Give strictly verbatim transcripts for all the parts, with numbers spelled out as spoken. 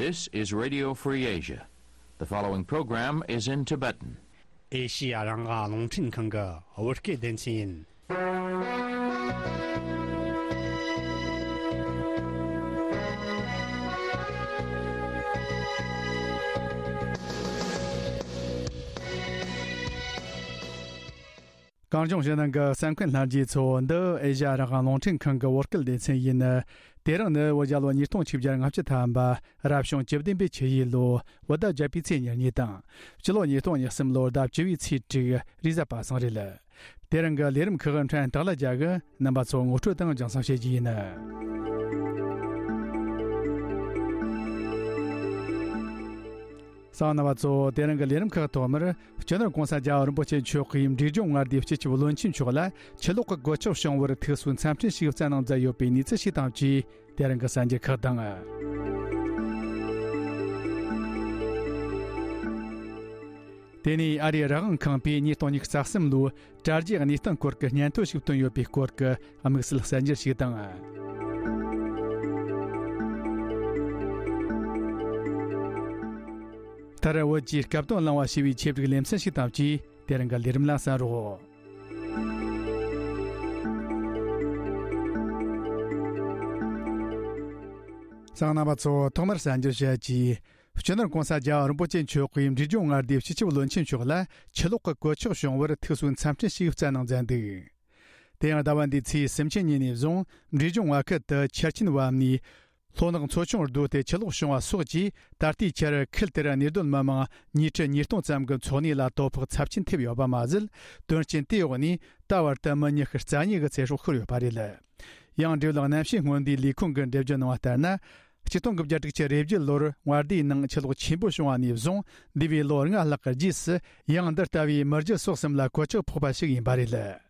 This is Radio Free Asia. The following program is in Tibetan. ཨེ་ཤི་ཡ་རང་དབང་རླུང་འཕྲིན་ཁང་གི་བོད་སྐད་སྡེ་ཚན་ཡིན། གངས་ལྗོངས་ཕྱི་ནང་གི་གསན་མཁན་ལྷན་རྒྱས་ཚོ། འདི་ཨེ་ཤ་ཡ་རང་དབང་རླུང་འཕྲིན་ཁང་གི་བོད་སྐད་སྡེ་ཚན་ཡིན། དེ་རིང་ནི་བོད་རྒྱལ་ལོ་ཉིས་སྟོང་ཆིག་བརྒྱ་ལྔ་བཅུ་ཐམ་པ། རབ་བྱུང་བཅུ་བདུན་པའི་ཆུ་ཡོས་ལོ། བོད་ཟླ་བརྒྱད་པའི་ཚེས་ཉེར་གཉིས་དང་། སྤྱི་ལོ་ཉིས་སྟོང་ཉེར་གསུམ་ལོར་ཟླ་བཅུ་བའི་ཚེས་དྲུག་རེས་གཟའ་པ་སངས་རེད། དེ་རིང་གི་ལས་རིམ་ཁག་ཕྲན་སྟག་ལ་རྒྱལ་གྱིས་རྣམ་པ་ཚོ་ངོ་སྤྲོད་དང་སྦྱང་བརྩོན་བྱེད་རྒྱུ་ཡིན། གསན་མཁན་རྣམ་པ་ཚོ། དེ་རིང་གི་ལས་རིམ་ཁག་ཐོག་མར། སྤྱི་ནོར་༸གོང་ས་༸རྒྱལ་བ་རིན་པོ་ཆེ་མཆོག་གིས་འབྲས་ལྗོངས་མངའ་སྡེའི་སྤྱི་ཁྱབ་བློན་ཆེན་མཆོག་ལ་ཆུ་ལོག་གི་གོད་ཆག་བྱུང་བར་ཐུགས་གསོའི་འཚམས་འཕྲིན་ཞིག་བསྩལ་གནང་མཛད་ཡོད་པའི་གནས་ཚུལ་ཞིག་དང་བཅས། དེ་རིང་གི་གསར་འགྱུར་ཁག་དང་། དེ་ནས་ཨ་རིའི་རང་དབང་ཁང་པས་ཉིས་སྟོང་ཉི་ཤུ་རྩ་གསུམ་ལོའི་དྲ་རྒྱའི་གནས་སྟངས་སྐོར་གྱི་སྙན་ཐོ་ཞིག་བཏོན་ཡོད་པའི་སྐོར་གྱི་དམིགས་བསལ་གསར་འགྱུར་ཞིག་དང་། མཐར་བོད་ཀྱི་སྐབས་དོན་བླངས་པ་ཞེས་པའི་ཆེད་བསྒྲིགས་ལེ་ཚན་ཞིག་དང་བཅས། དེ་རིང་གི་ལས་རིམ་ལ་གསན་རོགས། གསན་མཁན་རྣམ་པ་ཚོ། ཐོག་མར་གསར་འགྱུར་བཤད་ཀྱིས། སྤྱི་ནོར་༸གོང་ས་༸རྒྱལ་བ་རིན་པོ་ཆེ་མཆོག་གིས་འབྲས་ལྗོངས་མངའ་སྡེའི་སྤྱི་ཁྱབ་བློན་ཆེན་མཆོག་ལ་ཆུ་ལོག་གི་གོད་ཆག་བྱུང་བར་ཐུགས་གསོའི་འཚམས་འཕྲིན་ཞིག་བསྩལ་གནང་མཛད་འདུག་དེ་ཡང་ཟླ་བ་འདིའི་ཚེས་སུམ་ཅུ་ཉིན་ནས་བཟུང་འབྲས་ལྗོངས་མངའ་ཁུལ་དུ་ཆར་ཆེན་བབས་ནས། ལྷོ་ནག་མཚོ་ཆུང་རྡོ་དེ་ཆུ་ལོག་བྱུང་བ་སོགས་ཀྱིས། ད་ལྟའི་ཆར་ཁུལ་དེར་གནས་སྡོད་མི་མང་ཉིས་ཁྲི་ཉིས་སྟོང་ཙམ་གྱི་འཚོ་གནས་ལ་དོ་ཕོག་ཚབས་ཆེན་ཐེབས་ཡོད་པ་མ་ཟད། དོན་རྐྱེན་དེའི་འོག་ནས་ད་བར་དུ་མི་ཉི་ཤུ་རྩ་གཉིས་ཀྱི་ཚེ་སྲོག་ཤོར་ཡོད་པ་རེད། ཡང་། འབྲེལ་ཡོད་གནམ་གཤིས་སྔོན་བསྡུས་ལས་ཁུངས་ཀྱིས་འགྲེལ་བརྗོད་གནང་བ་ལྟར་ན། ཆིག་སྟོང་དགུ་བརྒྱ་དྲུག་ཅུ་རེ་བརྒྱད་ལོར་མངའ་སྡེའི་ནང་ཆུ་ལོག་ཆེན་པོ་བྱུང་བ་ནས་བཟུང་། འདས་པའི་ལོ་ལྔ་ལྷག་གི་རྗེས་སུ། ཡང་འདི་ལྟ་བུའི་མི་རྒྱུ་སོགས་གསུམ་ལ་གོད་ཆག་ཕོག་པ་ཞིག་ཡིན་པ་རེད།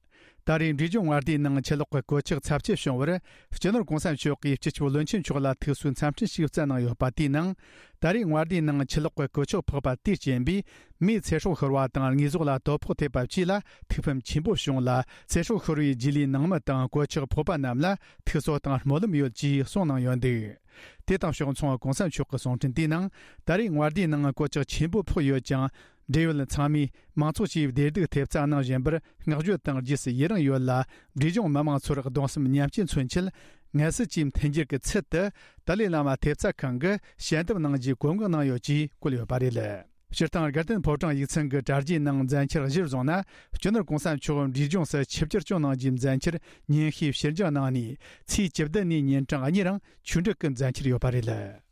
ད་རེས་འབྲས་ལྗོངས་མངའ་སྡེའི་ནང་ཆུ་ལོག་གི་གོད་ཆག་ཚབས་ཆེ་བྱུང་བར། སྤྱི་ནོར་༸གོང་ས་མཆོག་གིས་སྤྱི་ཁྱབ་བློན་ཆེན་མཆོག་ལ་ཐུགས་གསོའི་འཚམས་འཕྲིན་ཞིག་བསྩལ་གནང་ཡོད་པ། དེའི་ནང་། ད་རེས་མངའ་སྡེའི་ནང་ཆུ་ལོག་གི་གོད་ཆག་ཕོག་པ་དེའི་རྐྱེན་པས། མིའི་ཚེ་སྲོག་ཤོར་བ་དང་། དངོས་ཟོག་ལ་དོ་ཕོག་ཐེབས་པ་བཅས་ལ་ཐུགས་ཕམ་ཆེན་པོ་བྱུང་ལ། ཚེ་སྲོག་ཤོར་བའི་རྗེས་ལུས་ནང་མི་དང་། གོད་ཆག་ཕོག་པ་རྣམས་ལ་ཐུགས་གསོ་དང་སྨོན་ལམ་ཡོད་ཅེས་གསུངས་གནང་ཡོད་འདུག་དེ་དང་ཕྱོགས་མཚུངས། ༸གོང་ས་མཆོག་གི་གསུང་འཕྲིན་དེའི་ནང་། ད་རེས་མངའ་སྡེའི་ནང་གོད་ཆག་ཆེན་པོ་ཕོག་ཡོད་ཀྱང་། འབྲེལ་ཡོད་ཚང་མས་མང་ཚོགས་ཀྱིས་བདེ་སྡུག་ཐེབས་རྩ་གནང་བཞིན་པར་བསྔགས་བརྗོད་དང་རྗེས་སུ་ཡི་རང་ཡོད་ལ། འབྲས་ལྗོངས་མི་མང་ཚོར་གདུང་སེམས་མཉམ་སྐྱེད་མཚོན་ཆེད། ངལ་གསོ་བཅས་མཐུན་འགྱུར་གྱི་ཚུལ་དུ། ཏཱ་ལའི་བླ་མ་ཐེབས་རྩ་ཁང་གིས་ཞལ་འདེབས་གནང་རྒྱུའི་བཀོད་འགོག་གནང་ཡོད་ཅེས་བཀོད་ཡོད་པ་རེད། སྤྱིར་བཏང་། དགའ་ལྡན་ཕོ་བྲང་ཡིག་ཚང་གི་དྲ་རྒྱའི་ནང་མཛད་འཆར་གཞིར་བཟུང་ན། སྤྱི་ནོར་༸གོང་ས་མཆོག་འབྲས་ལྗོངས་སུ་ཆིབས་བསྒྱུར་སྐྱོང་གནང་རྒྱུའི་མཛད་འཆར་ཉིན་ཤས་ཕྱིར་འགྱངས་གནང་ནས། ཚེས་བཅུ་བདུན་ནས་ཉིན་གྲངས་གཉིས་རིང་ཆོས་འབྲེལ་གྱི་མཛད་འཆར་ཡོད་པ་རེད།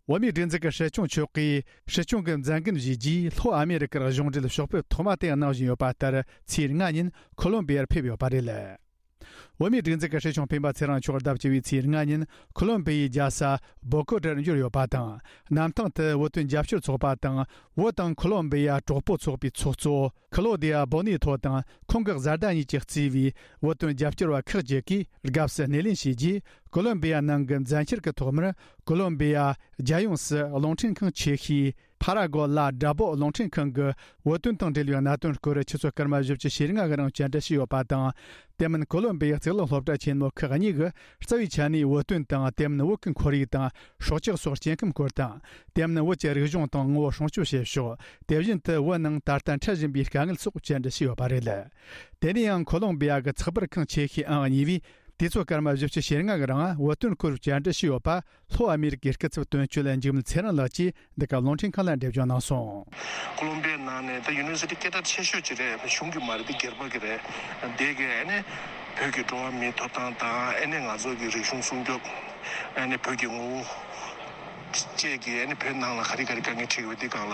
བོད་མིའི་སྒྲིག་འཛུགས་ཀྱི་སྲིད་སྐྱོང་མཆོག་གིས་སྲིད་སྐྱོང་གི་མཛད་འགན་བཞེས་རྗེས། ལྷོ་ཨ་མེ་རི་ཀར་གཞུང་འབྲེལ་ཕྱོགས་ཕེབས་ཐོག་མ་དེ་གནང་བཞིན་ཡོད་པ་ལྟར། ཚེས་ལྔ་ཉིན་ཁོ་ལོམ་བི་ཡར་ཕེབས་ཡོད་པ་རེད། བོད་མིའི་སྒྲིག་འཛུགས་ཀྱི་སྲིད་སྐྱོང་སྤེན་པ་ཚེ་རིང་མཆོག་ཟླ་བཅུ་བའི་ཚེས་ལྔ་ཉིན་ཁོ་ལོམ་བི་ཡའི་རྒྱལ་ས་བོ་ཀོ་ཊར་འབྱོར་ཡོད་པ་དང་། གནམ་ཐང་དུ་བོད་དོན་རྒྱབ་སྐྱོར་ཚོགས་པ་དང་། བོད་དང་ཁོ་ལོམ་བི་ཡ་གྲོགས་པོ་ཚོགས་པའི་ཚོགས་གཙོ་ཁི་ལོ་དི་ཡ་བོ་ནེ་ཐོ་དང་། ཁོང་གི་བཟའ་ཟླ་གཉིས་ཀྱིས་གཙོས་པའི་བོད་དོན་རྒྱབ་སྐྱོར་བ་ཁག་ཅིག་གིས་དགའ་བསུ་སྣེ་ལེན་བྱས་རྗེས། ཁོ་ལོམ་བི་ཡ་ནང་གི་མཛད་འཆར་གྱི་ཐོག་མར། ཁོ་ལོམ་བི་ཡ་རྒྱལ་ཡོངས་སུ་རླུང་འཕྲིན་ཁང་ཆེ་ཤོས་ཕ་ར་གོ་ལ་དྲ་པོ་རླུང་འཕྲིན་ཁང་གིས་བོད་དོན་དང་འབྲེལ་བའི་གནད་དོན་སྐོར་ཆུ་ཚོད་སྐར་མ་བཞི་བཅུ་ཞེ་ལྔ་གི་རིང་བཅར་འདྲི་ཞུས་ཡོད་པ་དང་། དེ་མིན་ཁོ་ལོམ་བི་ཡའི་རྩིས་ལེན་སློབ་གྲྭ་ཆེན་མོ་ཁག་གཉིས་ཀྱིས་རྩ་བའི་ཆ་ནས་བོད་དོན་དང་། དེ་མིན་བོད་ཀྱི་ཁོར་ཡུག་དང་སྲོག་ཆགས་སོགས་སྐྱེ་ཁམས་སྐོར་དང་། དེ་མིན་བོད་ཀྱི་རིག་གཞུང་དང་ངོ་བོ་སྲུང་སྐྱོབ་བྱེད་ཕྱོགས། དེ་བཞིན་དུ་བོད་ནང་ད་ལྟ་འཕྲད་བཞིན་པའི་དཀའ་ངལ་སོགས་བཅར་འདྲི་ཞུས་ཡོད་པ་རེད། དེ་ནས་ཡང་ཁོ་ལོམ་བི་ཡ་གི་ཚགས་པར་ཁང་ཆེ་ཤོས་ཨང་གཉིས་པས། དུས་ཚོད་སྐར་མ་བཞི་བཅུ་ཞེ་ལྔ་གི་རིང་བོད་དོན་སྐོར་བཅར་འདྲི་ཞུས་ཡོད་པ། ལྷོ་ཨ་མེ་རི་ཀའི་སྐུ་ཚབ་དོན་གཅོད་འཇིགས་མེད་ཚེ་རིང་ལགས་ཀྱིས་འདི་ག་རླུང་འཕྲིན་ཁང་ལ་འགྲེལ་བརྗོད་གནང་སོང་། ཁོ་ལོམ་བི་ཡའི་ནང་ནས་ད་ཡུ་ནི་ཝར་སི་ཊི་སྐད་གྲགས་ཆེ་ཤོས་ཅིག་རེད། གཞུང་གི་མ་རེད། འདི་སྒེར་པ་གི་རེད། འདི་གི་ཨ་ནི་བོད་ཀྱི་འགྲོ་བ་མིའི་ཐོབ་ཐང་དང་། ཨ་ནི་ང་ཚོ་གི་རིག་གཞུང་སྲུང་སྐྱོབ། ཨ་ནི་བོད་ཀྱི་ངོ་བོ་བཅས་ཀྱི། ཨ་ནི་བོད་ནང་ལ་ག་རེ་ག་རེ་དཀའ་ངལ་འཕྲད་ཀྱི་ཡོད་པ་འདི་སྒང་ལ།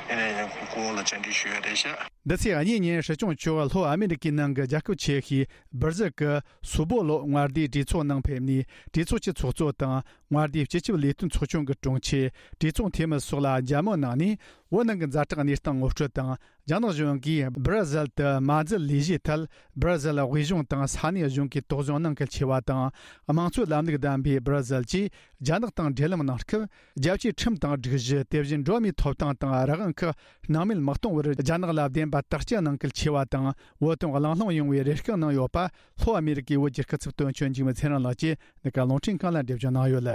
ཨ་ནི་སྐུ་ངོ་ལ་བཅར་འདྲི་ཞུས་ཡོད་རེད་ཤག་འདི་ཚེས་གཉིས་ཉིན་སྲིད་སྐྱོང་མཆོག་ལྷོ་ཨ་མེ་རི་ཀའི་ནང་གི་རྒྱལ་ཁབ་ཆེ་ཤོས་སྦིར་ཟིལ་གྱི་སུ་བོ་ལོ་མངའ་སྡེའི་གྲོས་ཚོགས་ནང་ཕེབས་ནས། གྲོས་ཚོགས་ཀྱི་ཚོགས་གཙོ་དང་། མངའ་སྡེའི་སྤྱི་ཁྱབ་ལས་དོན་ཚོགས་ཆུང་གི་དྲུང་ཆེ། གྲོས་ཚོགས་འཐུས་མི་སོགས་ལ་མཇལ་མོལ་གནང་ནས། བོད་ནང་གི་ཛ་དྲག་གནས་སྟངས་ངོ་སྤྲོད་དང་། རྒྱ་ནག་གཞུང་གིས་སྦིར་ཟིལ་དུ་མ་འཛུལ་ལས་གཞིའི་ཐད། སྦིར་ཟིལ་དབུས་གཞུང་དང་ས་གནས་གཞུང་གིས་དོགས་ཟོན་གནང་གལ་ཆེ་བ་དང་། དམངས་གཙོའི་ལམ་ལུགས་ལྡན་པའི་སྦིར་ཟིལ་གྱིས་རྒྱ་ནག་དང་འབྲེལ་ལམ་གནང་སྐབས། རྒྱལ་སྤྱིའི་ཁྲིམས་དང་སྒྲིག་གཞི། དེ་བཞིན་འགྲོ་བ་མིའི་ཐོབ་ཐང་དང་རང་དབང་ཁག་སྣང་མེད་མི་གཏོང་བར་རྒྱ་ནག་ལ་བདེན་ པ་དག་སྐྱིད་གནང་གལ་ཆེ་བ་དང་། བོད་དོན་གླེང་སློང་ཡོང་བའི་རེ་སྐུལ་གནང་ཡོད་པ། ལྷོ་ཨ་མི་རི་ཀའི་བོད་བསྒྱུར་སྐུ་ཚབ་དོན་གཅོད་འཇིགས་མེད་ཚེ་རིང་ལགས་ཀྱིས་འདི་ག་རླུང་འཕྲིན་ཁང་ལ་འགྲེལ་བརྗོད་གནང་ཡོད།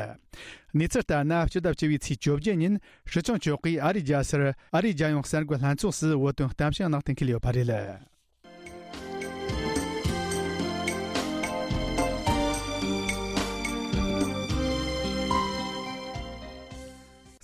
གནས་ཚུལ་ལྟར་ན། སྤྱི་ཟླ་བཅུ་པའི་ཚེས་བཅོ་བརྒྱད་ཉིན་སྲིད་སྐྱོང་མཆོག་གིས་ཨ་རིའི་རྒྱལ་སར་ཨ་རིའི་རྒྱལ་ཡོངས་གསར་འགོད་ལྷན་ཚོགས་སུ་བོད་དོན་གཏམ་བཤད་གནང་གཏན་འཁེལ་ཡོད་པ་རེད།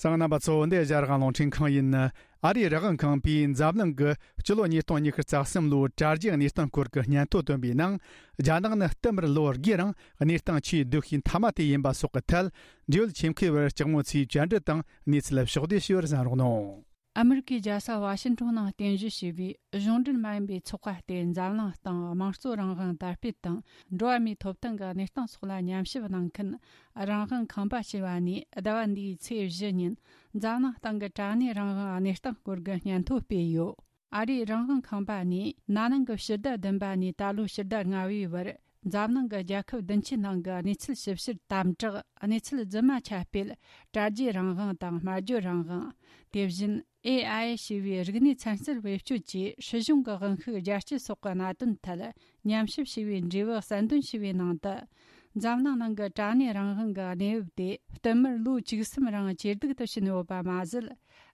གསན་མཁན་རྣམ་པ་ཚོ། འདི་ཨེ་ཤ་ཡ་རང་དབང་རླུང་འཕྲིན་ཁང་ཡིན། ཨ་རིའི་རང་དབང་ཁང་པས་འཛམ་གླིང་གི་སྤྱི་ལོ་ཉིས་སྟོང་ཉི་ཤུ་རྩ་གསུམ་ལོའི་དྲ་རྒྱའི་གནས་སྟངས་སྐོར་གྱི་སྙན་ཐོ་བཏོན་པའི་ནང་། རྒྱ་ནག་ནི་བསྟུད་མར་ལོ་དགུའི་རིང་གནས་སྟངས་ཆེས་སྡུག་ཤོས་མཐའ་མ་དེ་ཡིན་པ་སོགས་ཀྱི་ཐད། འབྲེལ་ཡོད་ཆེད་མཁས་པར་ལྕགས་མོ་ཆེའི་བཅར་འདྲི་དང་གནས་ཚུལ་ཕྱོགས་བསྡུས་ཞུས་པར་གསན་རོགས་གནང་། ཨ་མི་རི་ཀའི་རྒྱལ་ས་ཝ་ཤིང་ཊོན་ནང་རྟེན་གཞི་བྱས་པའི་གཞུང་འབྲེལ་མ་ཡིན་པའི་ཚོགས་པ་སྟེ། འཛམ་གླིང་སྟེང་དམངས་གཙོ་རང་དབང་དར་སྤེལ་དང་འགྲོ་བ་མིའི་ཐོབ་ཐང་གི་གནས་སྟངས་སོགས་ལ་ཉམས་ཞིབ་གནང་མཁན་རང་དབང་ཁང་པ་ཞེས་པ་ནས། ཟླ་བ་འདིའི་ཚེས་བཞི་ཉིན་འཛམ་གླིང་སྟེང་གི་དྲ་གནས་རང་དབང་གནས་སྟངས་སྐོར་གྱི་སྙན་ཐོ་སྤེལ་ཡོད། ཨ་རིའི་རང་དབང་ཁང་པ་ནས་ན་ནིང་གི་ཕྱི་ཟླ་བདུན་པ་ནས་ད་ལོའི་ཕྱི་ཟླ་ལྔ་པའི་བར། འཛམ་གླིང་གི་རྒྱལ་ཁབ་བདུན་ཅུའི་ནང་གི་གནས་ཚུལ་ཞིབ་བཤེར་དམ་དྲག་གནས་ཚུལ་རྫུན་མ་ཁྱབ་སྤེལ། དྲ་རྒྱའི་རང་དབང་དང་སྨྲ་བརྗོད་རང་དབང་། དེ་བཞིན་ཨེ་ཨའི་ཞེས་པའི་རིག་གནས་ཚན་རྩལ་བེད་སྤྱོད་ཀྱིས་སྲིད་གཞུང་གི་དབང་ཤུགས་རྒྱ་སྐྱེད་སོགས་ཀྱི་གནད་དོན་ཐད་ཉམས་ཞིབ་བྱས་པའི་འབྲས་བུ་གསལ་འདོན་བྱས་པའི་ནང་དུ། འཛམ་གླིང་ནང་གི་དྲ་གནས་རང་དབང་གི་གནས་བབ་དེ་བསྟུད་མར་ལོ་བཅུ་གསུམ་རིང་ཇེ་སྡུག་ཏུ་ཕྱིན་ཡོད་པ་མ་ཟད།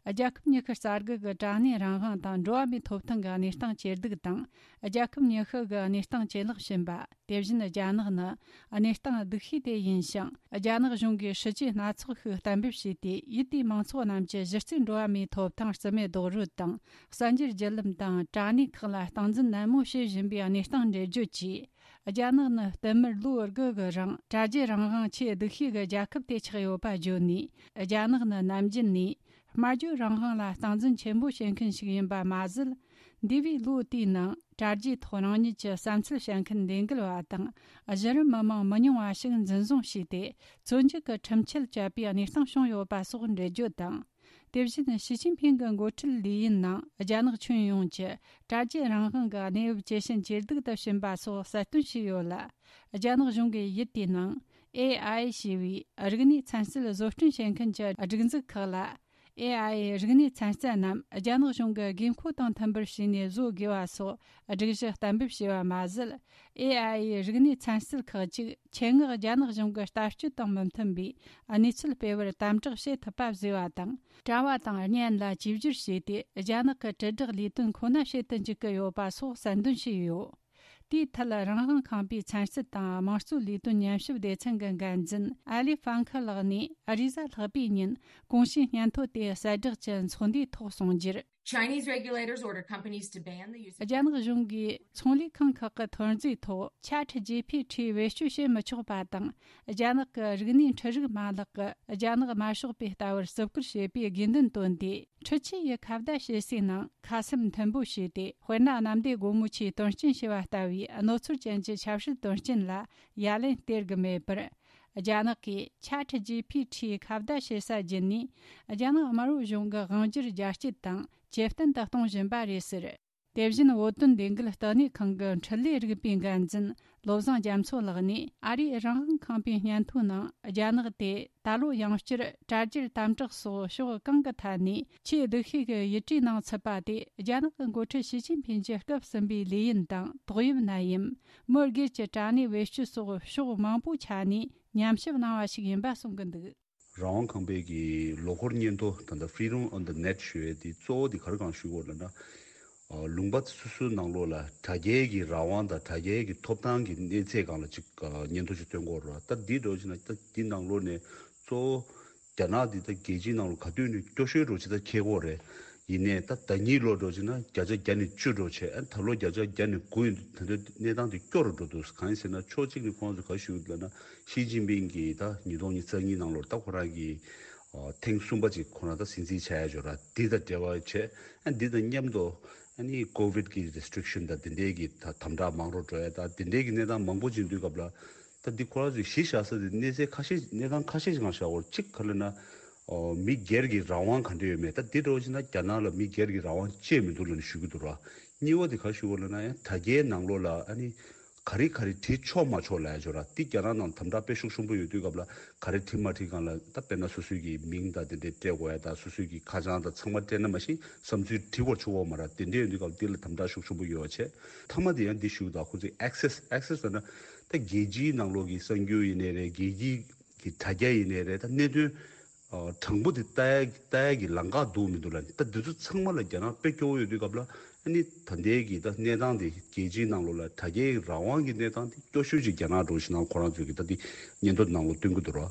རྒྱལ་ཁབ་ཉི་ཤུ་རྩ་དགུ་གི་དྲ་གནས་རང་དབང་དང་འགྲོ་བ་མིའི་ཐོབ་ཐང་གི་གནས་སྟངས་ཇེ་སྡུག་དང་། རྒྱལ་ཁབ་ཉི་ཤུ་གི་གནས་སྟངས་ཇེ་ལེགས་ཕྱིན་པ། དེ་བཞིན་རྒྱ་ནག་ནི་གནས་སྟངས་སྡུག་ཤོས་དེ་ཡིན་ཞིང་། རྒྱ་ནག་གཞུང་གིས་སྲིད་ཇུས་སྣ་ཚོགས་ཤིག་གཏན་འབེབས་བྱས་ཏེ། ཡུལ་དེའི་མང་ཚོགས་རྣམས་ཀྱི་གཞི་རྩའི་འགྲོ་བ་མིའི་ཐོབ་ཐང་རྩིས་མེད་རྡོག་རོལ་དང་། གསར་འགྱུར་བརྒྱུད་ལམ་དང་དྲ་གནས་ཁག་ལ་སྟངས་འཛིན་ནན་མོ་བྱེད་བཞིན་པའི་གནས་སྟངས་འགྲེལ་བརྗོད་ཀྱིས། རྒྱ་ནག་ནི་བསྟུད་མར་ལོ་དགུ་གི་རིང་དྲ་རྒྱའི་རང་དབང་ཆེས་སྡུག་ཤོས་ཀྱི་རྒྱལ་ཁབ་དེ་ཆགས་ཡོད་པ་བརྗོད་ནས། རྒྱ་ནག་ནི་ནམ་རྒྱུན་ནས་སྨྲ་བརྗོད་རང་དབང་ལ་སྟངས་འཛིན་ཆེན་པོ་བྱེད་མཁན་ཞིག་ཡིན་པ་མ་ཟད། འདས་པའི་ལོ་དེའི་ནང་དྲ་རྒྱའི་ཐོག་རང་ཉིད་ཀྱི་བསམ་ཚུལ་བཤད་མཁན་ལས་འགུལ་བ་དང་། གཞི་རིམ་མི་མང་མི་ཉུང་བ་ཞིག་འཛིན་བཟུང་བྱས་ཏེ། བཙོན་འཇུག་གི་ཁྲིམས་ཆད་བཅད་པའི་གནས་སྟངས་བྱུང་ཡོད་པ་སོགས་འགྲེལ་བརྗོད་དང་། དེ་བཞིན་ཞི་ཅིན་ཕིང་གི་འགོ་ཁྲིད་ལས་ཡུན་ནང་རྒྱ་ནག་ཁྱོན་ཡོངས་ཀྱི་དྲ་རྒྱའི་རང་དབང་གི་གནས་བབ་ཇེ་ཞན་ཇེ་སྡུག་ཏུ་ཕྱིན་པ་སོགས་གསལ་སྟོན་བྱས་ཡོད་ལ། རྒྱ་ནག་གཞུང་གིས་ཡུལ་དེའི་ནང་ཨེ་ཨའི་ཞེས་པའི་རིག་གནས་ཚན་རྩལ་བཟོ་སྐྲུན་བྱེད་མཁན་གྱི་སྒྲིག་འཛུགས་ཁག་ལ། ཨེ་ཨའི་རིག་གནས་ཚན་རྩལ་རྣམས་རྒྱ་ནག་གཞུང་གི་དགོས་མཁོ་དང་མཐུན་པར་བྱས་ནས་བཟོ་དགོས་པ་སོགས་སྒྲིག་གཞི་གཏན་འབེབས་བྱས་པ་མ་ཟད། ཨེ་ཨའི་རིག་གནས་ཚན་རྩལ་ཁག་ཅིག་ཆེད་མངགས་རྒྱ་ནག་གཞུང་གི་ལྟ་སྤྱོད་དང་མི་མཐུན་པའི་གནས་ཚུལ་སྤེལ་བར་དམ་དྲག་བྱེད་ཐུབ་པ་བཟོས་པ་དང་། དྲ་བ་དང་བརྙན་ལ་བཅོས་བསྒྱུར་བྱས་ཏེ། རྒྱ་ནག་གི་དྲིལ་བསྒྲགས་ལས་དོན་ཁོ་ན་བྱེད་དུ་འཇུག་གི་ཡོད་པ་སོགས་གསལ་འདོན་བྱས་ཡོད། དེའི་ཐད་རང་དབང་ཁང་པའི་ཚན་རྩལ་དང་དམངས་གཙོའི་ལས་དོན་ཉམས་ཞིབ་སྡེ་ཚན་གྱི་འགན་འཛིན་ཨ་ལི་ཧྥང་ཁི་ལགས་ནས། ཨ་རི་གཟའ་ལྷག་པའི་ཉིན་གོང་ཞུས་སྙན་ཐོ་དེ་གསལ་བསྒྲགས་ཀྱི་ཚོགས་འདུའི་ཐོག་གསུངས་རྒྱུར། Chinese regulators ordered companies to ban the use of རྒྱ་ནག་གཞུང་གིས་ཚོང་ལས་ཁང་ཁག་གི་ཐོན་རྫས་ཐོག་Chat G P T བེད་སྤྱོད་བྱེད་མི་ཆོག་པ་དང་། རྒྱ་ནག་གི་རིག་གནས་འཕྲུལ་རིག་མ་ལག་གི་རྒྱ་ནག་དམར་ཤོག་པས་ལྟ་བར་བརྩི་བཀུར་བྱེད་པའི་དགོས་འདུན་བཏོན་ཏེ། འཕྲུལ་ཆས་ཀྱི་ཁ་བརྡ་བྱེད་སའི་ནང་ཁ་གསབ་མཐུན་པོ་བྱས་ཏེ། དཔེར་ན། གནམ་བདེ་སྒོ་མོ་ཆེའི་དོན་རྐྱེན་ཞེས་པ་ལྟ་བུའི་གནོད་འཚེ་ཅན་གྱི་ཆབ་སྲིད་དོན་རྐྱེན་ལ་ཡ་ལན་སྟེར་གྱི་མེད་པར། རྒྱ་ནག་གིས་Chat G P T ཁ་བརྡ་བྱེད་ས་བརྒྱུད་ནས། རྒྱ་ནག་དམར་པོ་གཞུང་གི་དབང་སྒྱུར་རྒྱ་སྐྱེད་དང་ཇེ་བརྟན་དུ་གཏོང་བཞིན་པ་རེད་ཟེར། དེ་བཞིན་བོད་དོན་ལས་འགུལ་ལྟེ་གནས་ཁང་གི་འཕྲུལ་ལས་རིག་པའི་འགན་འཛིན་བློ་བཟང་རྒྱ་མཚོ་ལགས་ནས། ཨ་རིའི་རང་དབང་ཁང་པའི་སྙན་ཐོའི་ནང་། རྒྱ་ནག་དེ་ད་ལོ་ཡང་བསྐྱར་དྲ་རྒྱར་དམ་དྲག་སོགས་ཕྱོགས་གང་གི་ཐད་ནས་ཆེས་སྡུག་ཤོས་ཀྱི་ཡུལ་གྲུའི་ནང་ཚུད་པ་དེ། རྒྱ་ནག་གི་འགོ་ཁྲིད་ཞི་ཅིན་ཕིན་གྱི་སྐབས་གསུམ་པའི་ལས་ཡུན་དང་ཏོག་དབྱིབས་ནད་ཡམས། མི་སྒེར་གྱི་དྲ་གནས་བེད་སྤྱོད་སོགས་ཕྱོགས་མང་པོའི་ཆ་ནས་ཉམས་ཞིབ་གནང་བ་ཞིག་ཡིན་པ་གསུང་གི་འདུག། རང་དབང་ཁང་པའི་གི་ལོ་འཁོར་སྙན་ཐོ་ད་ལྟ་Freedom on the Net ཞུ་བའི་དེ་གཙོ་བོ་དེ་ག་རེ་གང་ཞུ་དགོས་ལབ་ན། ཨ། ལུང་པ་སོ་སོའི་ནང་ལོགས་ལ་དྲ་རྒྱའི་གི་རང་དབང་དང་དྲ་རྒྱའི་གི་ཐོབ་ཐང་གི་གནས་ཚད་སྒང་ལ་ཅིག་ཨ། སྙན་ཐོ་ཅིག་བཏོན་དགོས་རེད་བ། ད་འདི་འདྲ་བྱས་ན་ད་འདི་ནང་ལོགས་ནས་གཙོ་བོ་རྒྱ་ནག་འདི་ད་རྒྱལ་སྤྱིའི་ནང་ལོགས་ག་དུས་ནས་སྐྱོ་ཤོས་འདྲ་བྱས་ད་ཁེལ་གོ་རེད། ཡིན་ནའི་ད་ཟླ་ཉིས་ལོ་འདྲ་བྱས་ན་བརྒྱ་ཆ་བརྒྱ་ནས་བཅུ་འདྲ་བྱས། ཨ། ད་ལོ་བརྒྱ་ཆ་བརྒྱ་ནས་དགུ་ཡིན་དུས། ད་ལྟ་གནས་སྟངས་དེ་སྐྱོ་རུ་འགྲོ་འདུག། གང་ཡིན་ཟེར་ན་ཕྱོགས་གཅིག་ནས་ཁོང་ཚོས་ག་རེ་ཞུ་གི་འདུག་ལབ་ན། ཞི་ཅིན་ཕིང་གིས་ད་ཉིས་སྟོང་ཉི་ཤུ་རྩ་གཉིས་ནང་ལོགས་ད་ཁོ་རང་གིས་ཨ། ཐེངས་གསུམ་པ་ཅིག་ཁོ་རང་ད་སྲིད་འཛིན་ཆགས་ཡ་ཅིག་ཡོད་ར། འདི་དང་འབྲེལ་བ་བྱས། ཨ། འདི་དང་མཉམ་དུ་ཨ་ནི་ཀོ་ཝིད་ཀྱི་རེ་སི་ཊི་རིག་ཤན་དང་དེ་འདྲའི་གི་ད་དམ་དྲག་མང་རུ་འགྲོ་ཡ་དང་དེ་འདྲའི་གི་གནས་སྟངས་མང་པོ་ཅིག་འདུག་སྐབས་ལ། ད་འདི་ཁོ་རང་ཚོས་གཞི་བཞག་ས་དེ་གནས་ཚད་ཁ་ཤས། གནས་སྟངས་ཁ་ཤས་ཤིག་སྒང་བཞག་དགོས། གཅིག་ག་རེ་ལབ་ན། ཨོ། མི་སྒེར་གྱི་རང་དབང་ག་འདྲ་ཡོད་མེད། ད་འདི་འདྲ་བོ་ཞིག་ན་རྒྱ་ནག་ལ་མི་སྒེར་གྱི་རང་དབང་ཅི་ཡང་མི་འདུག་ལབ་ནས་ཞུ་གི་འདུག་ར། གཉིས་པ་དེ་ག་ཞུ་དགོས་ལབ་ན། ཡང་དྲ་རྒྱའི་ནང་ལོགས་ལ་ཨ་ནི་ ག་རེ་ག་རེ་བྲིས་ཆོག་མ་ཆོག་ལབ་ཡ་ཅིག་ཡོད་ར། དེ་རྒྱ་ནག་ནང་དམ་དྲག་དཔེ་ཤུགས་ཆེན་པོ་ཡོད་དུས་སྐབས་ལ་ག་རེ་བྲིས་མ་བྲིས་སྒང་ལ་ད་དཔེར་ན་སོ་སོའི་གི་མིང་དང་དེ་འདྲས་སྤྲད་དགོས་ཡ་དང་སོ་སོའི་གི་ཁ་བྱང་དང་ཚང་མ་སྤྲད་ན་མ་གཞི་བསམ་ཚུལ་བྲིས་དགོས་ཆོག་གོ་མ་ར། དེ་འདྲས་ཡོད་དུས་སྐབས་དེ་ལ་དམ་དྲག་ཤུགས་ཆེན་པོ་ཡོད་པ་བྱས། མཐའ་མ་དེ་ཡང་འདི་ཞུ་གི་འདུག་ཁོ་ཚོས་ཨེག་སེ་སི་ཨེག་སེ་སི་ཟེར་ན་ད་རྒྱལ་སྤྱིའི་ནང་ལོགས་ཀྱི་གསར་འགྱུར་ཡིན་ནའི་རེད། རྒྱལ་སྤྱིའི་གི་དྲ་རྒྱ་ཡིན་ནའི་རེད། ད་གནད་དོན་ཨ་དྲང་པོ་དེ་ལྟ་ཡ་ལྟ་ཡ་གི་ལམ་ཁ་འདུག་མི་འདུག་ལབ་ནས། ད་འདི་ཚོ་ཚང་མ་ལ་རྒྱ་ནག་དཔེ་སྐྱོ་བོ་ཡོད་དུས་སྐབས་ལ་ཨ་ནི་ད་ལྟའི་གི་ད་གནས་སྟངས་དེ་རྒྱལ་སྤྱིའི་ནང་ལོགས་ལ་དྲ་རྒྱའི་རང་དབང་གི་གནས་སྟངས་དེ་སྐྱོ་ཤོས་ཅིག་རྒྱ་ནག་འགྲོ་བཞིན་ན་ཁོ་རང་ཚོས་གི་ད་དེ་སྙན་ཐོ་ནང་ལོགས་སྟོན་གི་འདུག་ར།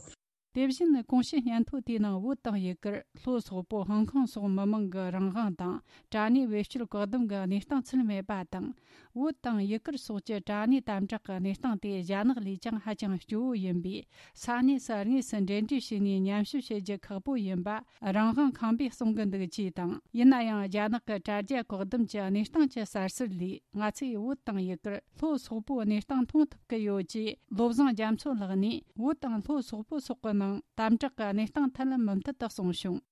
དེ་བཞིན་གོང་ཞུས་སྙན་ཐོ་དེའི་ནང་བོད་དང་ཡུ་གུར། ལྷོ་སོག་པོ་ཧོང་ཀོང་སོགས་མི་མང་གི་རང་དབང་དང་། དྲ་གནས་བེད་སྤྱོད་བཀག་སྡོམ་གྱི་གནས་སྟངས་ཚུད་མེད་པ་དང་། བོད་དང་ཡུ་གུར་སོགས་ཀྱི་དྲ་གནས་དམ་དྲག་གི་གནས་སྟངས་དེ་རྒྱ་ནག་ལས་ཀྱང་ཧ་ཅང་སྐྱོ་བོ་ཡིན་པས། ས་གནས་སུ་དངོས་སུ་འབྲེལ་འདྲིས་བྱས་ནས་ཉམས་ཞིབ་བྱེད་རྒྱུ་ཁག་པོ་ཡིན་པ་རང་དབང་ཁང་པས་གསུང་གི་འདུག་ཅེས་དང་། ཡིན་ན་ཡང་རྒྱ་ནག་གི་དྲ་རྒྱ་བཀག་སྡོམ་གྱི་གནས་སྟངས་ཀྱི་གསར་ཟུར་ལས། ང་ཚོས་བོད་དང་ཡུ་གུར། ལྷོ་སོག་པོའི་གནས་སྟངས་མཐོང་ཐུབ་ཀྱི་ཡོད་ཅེས། བློ་བཟང་རྒྱ་མཚོ་ལགས་ནས་བོད་དང་ལྷོ་སོག་པོ་སོགས་ཀྱི་ནང་དམ་དྲག་གི་གནས་སྟངས་ཐད་མུ་མཐུད་དུ་གསུངས་བྱུང་།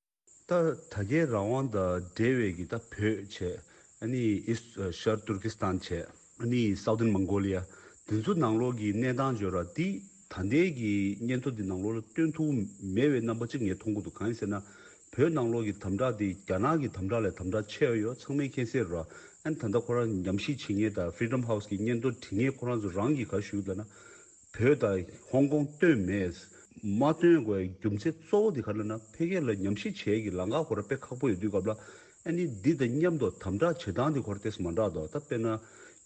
ད་དྲ་རྒྱའི་རང་དབང་དང་འབྲེལ་བའི་གི་ད་བོད་བྱས། ཨ་ནི་ཨིས་ཤར་ཏུར་ཀི་སི་ཐན་བྱས། ཨ་ནི་སའུ་ཐན་མོང་གོ་ལི་ཡ། དེ་ཚོ་ནང་ལོགས་ཀྱི་གནས་སྟངས་བརྗོད་ར་འདི་ད་ལྟའི་གི་སྙན་ཐོ་འདི་ནང་ལོགས་ལ་སྟོན་ཐུབ་མེད་པའི་རྣམ་པ་གཅིག་ངས་མཐོང་གི་འདུག་གང་ཡིན་ཟེར་ན། བོད་ནང་ལོགས་ཀྱི་དམ་དྲག་འདི་རྒྱ་ནག་གི་དམ་དྲག་ལས་དམ་དྲག་ཆེ་བ་ཡོད་ཚང་མས་མཁྱེན་གསལ་རེད། ཨ་ནི་ད་ལྟ་ཁོ་རང་ཉམས་ཞིབ་བྱེད་མཁན་དང་Freedom House་གི་སྙན་ཐོ་འབྲི་མཁན་ཁོ་རང་ཚོ་རང་གིས་ག་ཞུས་ལབ་ན། བོད་དང་ཧོང་ཀོང་བཏོན་མེད། མ་བཏོན་དགོས་རྒྱུ་མཚན་གཙོ་བོ་དེ་ག་རེ་ལབ་ན། ཕ་གི་ལ་ཉམས་ཞིབ་བྱེད་ཀྱི་ལམ་ཁ་ཁོ་རང་དཔེ་ཁག་པོ་ཡོད་དུས་སྐབས་ལ། ཨ་ནི་འདི་དང་མཉམ་དུ་དམ་དྲག་བྱེད་སྟངས་དེ་ཁོ་རང་ཏོག་ཙམ་མ་འདྲ་འདུག་ད་དཔེར་ན་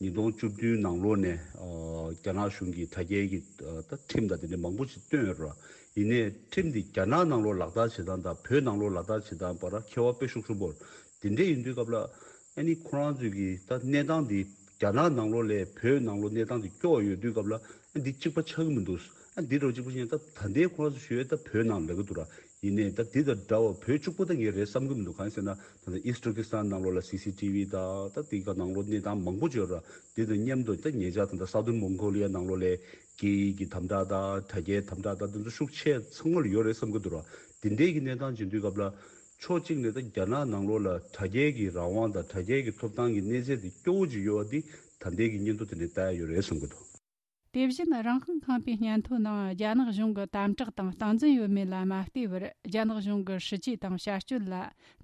ཉིས་སྟོང་བཅུ་བདུན་ནང་ལོགས་ནས་ཨ་རྒྱ་ནག་གཞུང་གིས་དྲ་རྒྱའི་གི་ཨ་ད་ཁྲིམས་དང་དེ་འདྲ་མང་པོ་ཞིག་བཏོན་ཡོད་རེད། ཡིན་ནའི་ཁྲིམས་འདི་རྒྱ་ནག་ནང་ལོགས་ལག་བསྟར་བྱེད་སྟངས་དང་བོད་ནང་ལོགས་ལག་བསྟར་བྱེད་སྟངས་བར་ཁྱད་པར་དཔེ་ཤུགས་ཆེན་པོ་རེད། དེ་འདྲ་ཡིན་དུས་སྐབས་ལ། ཨ་ནི་ཁོ་རང་ཚོས་ཀྱི་ད་གནས་སྟངས་འདི་རྒྱ་ནག་ནང་ལོགས་ལས་བོད་ནང་ལོགས་གནས་སྟངས་འདི་སྐྱོ་བ་ཡོད་དུས་སྐབས་ལ། ཨ་འདི་གཅིག་པ་ཆགས་ཀྱི་མི་འདུག་ཨ་འདི་འདྲ་གཅིག་པ་ཆགས་ཡིན་ད་ད་ལྟའི་ཁོ་རང་ཚོ་ཞུ་ཡས་ད་བོད་ནང་ལབ་ཀྱི་འདུག་ར། ཡིན་ནའི་ད་འདི་དང་འདྲ་བ་བོད་གཅིག་པ་ད་ངས་རེད་བསམ་གྱི་མི་འདུག་གང་ཡིན་ཟེར་ན། ད་ལྟ་ཨིས་ཏུར་ཀི་སི་ཐན་ནང་ལོགས་ལ་སི་སི་ཊི་ཝི་དང་ད་དེ་ག་ནང་ལོགས་གནས་སྟངས་མང་པོ་ཅིག་ཡོད་ར། འདི་དང་མཉམ་དུ་ད་ཉེ་ཆར་ད་ལྟ་སའུ་ཐན་མོང་གོ་ལི་ཡ་ནང་ལོགས་ལས་སྐད་ཡིག་གི་དམ་དྲག་དང་དྲ་རྒྱའི་དམ་དྲག་དང་དེ་ཚོ་ཤུགས་ཆེ་ཚང་མ་ལ་ཡོད་རེད་བསམ་གྱི་འདུག་ར། དེ་འདྲའི་གི་གནས་སྟངས་ཅིག་ཡིན་དུས་སྐབས་ལ། ཕྱོགས་གཅིག་ནས་ད་རྒྱ་ནག་ནང་ལོགས་ལ་དྲ་རྒྱའི་གི་རང་དབང་དང་དྲ་རྒྱའི་གི་ཐོབ་ཐང་གི་གནས་ཚད་དེ་སྐྱོ་བོ་ཅིག་ཡོད་པ་འདི་ད་ལྟའི་གི་སྙན་ཐོ་དེ་ནས་ལྟ་ཡ་ཡོད་རེད་བསམ་གྱི་འདུག་དེ་བཞིན་རང་དབང་ཁང་པའི་སྙན་ཐོའི་ནང་རྒྱ་ནག་གཞུང་གི་དམ་དྲག་དང་སྟངས་འཛིན་ཡོད་མེད་ལ་མ་ལྟོས་པར། རྒྱ་ནག་གཞུང་གི་སྲིད་ཇུས་དང་བྱ་སྤྱོད་ལ་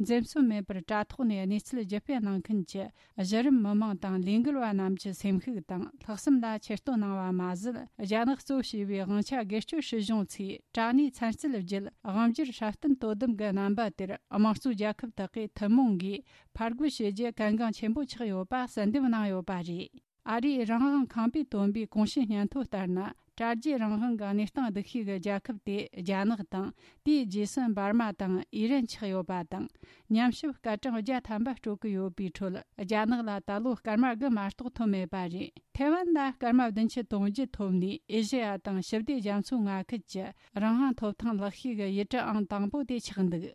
འཛེམ་ཟོན་མེད་པར་དྲ་ཐོག་ནས་གནས་ཚུལ་བརྒྱུད་སྤེལ་གནང་མཁན་གྱི་གཞི་རིམ་མི་མང་དང་ལས་འགུལ་བ་རྣམས་ཀྱི་སེམས་ཤུགས་དང་ལྷག་བསམ་ལ་ཆེ་བསྟོད་གནང་བ་མ་ཟད། རྒྱ་ནག་གཙོ་བྱས་པའི་དབང་ཆ་སྒེར་གཅོད་སྲིད་གཞུང་ཚོས་དྲ་གནས་ཚན་རྩལ་བརྒྱུད་དབང་སྒྱུར་སྲ་བརྟན་དོ་དམ་གྱི་རྣམ་པ་དེར་དམངས་གཙོའི་རྒྱལ་ཁབ་དག་གིས་ཐུན་མོང་སྒོས་ཕར་རྒོལ་བྱེད་རྒྱུ་གལ་འགངས་ཆེན་པོ་ཆགས་ཡོད་པ་གསལ་འདེབས་གནང་ཡོད་པ་རེད། ཨ་རིའི་རང་དབང་ཁང་པས་བཏོན་པའི་གོང་ཞུས་སྙན་ཐོ་ལྟར་ན། དྲ་རྒྱའི་རང་དབང་གི་གནས་སྟངས་སྡུག་ཤོས་ཀྱི་རྒྱལ་ཁབ་དེ་རྒྱ་ནག་དང་། དེའི་རྗེས་སུ་འབར་མ་དང་ཨི་རན་ཆགས་ཡོད་པ་དང་། ཉམས་ཞིབ་སྐར་གྲངས་བརྒྱ་ཐམ་པ་སྤྲོད་ཀྱི་ཡོད་པའི་ཁྲོད། རྒྱ་ནག་ལ་ད་ལོ་སྐར་མ་དགུ་མ་གཏོགས་ཐོབ་མེད་པ་རེད། ཐའེ་ཝན་ལ་སྐར་མ་བདུན་ཅུ་དོན་བརྒྱད་ཐོབ་ནས། ཨེ་ཤེ་ཡ་དང་ཞི་བདེ་རྒྱ་མཚོའི་མངའ་ཁུལ་གྱི་རང་དབང་ཐོབ་ཐང་ལེགས་ཤོས་ཀྱི་ཡུལ་གྲུ་ཨང་དང་པོ་དེ་ཆགས་འདུག་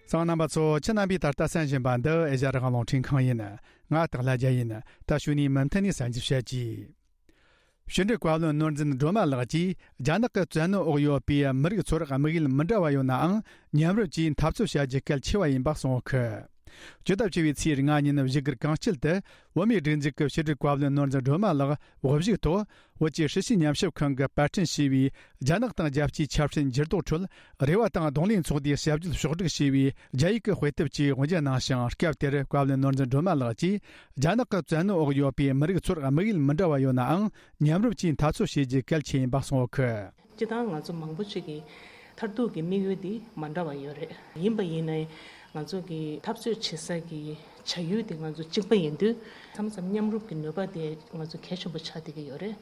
གསན་མཁན་རྣམ་པ་ཚོ། ཁྱེད་རྣམ་པས་ད་ལྟ་གསན་བཞིན་པ་འདི་ཨེ་ཤ་ཡ་རང་དབང་རླུང་འཕྲིན་ཁང་ཡིན། ང་སྟག་ལྷ་རྒྱལ་ཡིན། ད་གཞུག་ནས་མུ་མཐུད་ནས་གསན་རྒྱུ་བྱེད་ཀྱིས། ཕྱི་དྲིལ་བཀའ་བློན་ནོར་འཛིན་སྒྲོལ་མ་ལགས་ཀྱིས། རྒྱ་ནག་གི་བཙན་གནོན་འོག་ཡོད་པའི་མི་རིགས་ཚོར་དམིགས་ཡུལ་མི་འདྲ་བ་ཡོད་ནའང་། མཉམ་རུབ་ཀྱིས་འཐབ་རྩོད་བྱ་རྒྱུ་གལ་ཆེ་བ་ཡིན་པ་གསུངས་ཡོད་ཀི། སྤྱི་ཟླ་བཅུ་བའི་ཚེས་ལྔ་ཉིན་བཞུགས་སྒར་གངས་སྐྱིད་དུ། བོད་མིའི་སྒྲིག་འཛུགས་ཀྱི་ཕྱི་དྲིལ་བཀའ་བློན་ནོར་འཛིན་སྒྲོལ་མ་ལགས་དབུ་བཞུགས་ཐོག་བོད་ཀྱི་ཧྲི་ཞི་ཉམས་ཞིབ་ཁང་གིས་པར་སྐྲུན་བྱས་པའི་རྒྱ་ནག་དང་རྒྱལ་སྤྱིའི་ཆབ་སྲིད་འགྱུར་ལྡོག་ཁྲོད་རེ་བ་དང་གདོང་ལེན་ཚོགས་འདུའི་ཞབས་ཞུ་ཕྱོགས་བསྒྲིགས་བྱས་པའི་རྒྱ་ཡིག་གི་དཔེ་དེབ་ཅིག་དབུ་འབྱེད་གནང་ཞིང་། སྐབས་དེར་བཀའ་བློན་ནོར་འཛིན་སྒྲོལ་མ་ལགས་ཀྱིས། རྒྱ་ནག་གི་བཙན་གནོན་འོག་ཡོད་པའི་མི་རིགས་ཚོར་དམིགས་ཡུལ་མི་འདྲ་བ་ཡོད་ནའང་། མཉམ་རུབ་ཀྱིས་འཐབ་རྩོད་བྱེད་རྒྱུ་གལ་ཆེ་ཡིན་པ་གསུངས་ཡོད་ཀི། སྤྱིར་བཏང་ང་ཚོ་མང་པོ་ཅིག་གི་མཐར་ཐུག་གི་དམིགས་ཡུལ་འདི་མ་འདྲ་བ་ཡོད་རེད། ཡིན་པ་ཡིན་ནའི་ང་ཚོ་གི་འཐབ་རྩོད་བྱེད་ས་གི་བྱ་ཡུལ་འདི་ང་ཚོ་གཅིག་པ་ཡིན་དུས། མཚམས་མཚམས་མཉམ་རུབ་ཀྱི་ནུས་པ་དེ་ང་ཚོ་གལ་ཆེན་པོ་ཆགས་བསྡད་ཀྱི་ཡོད་རེད།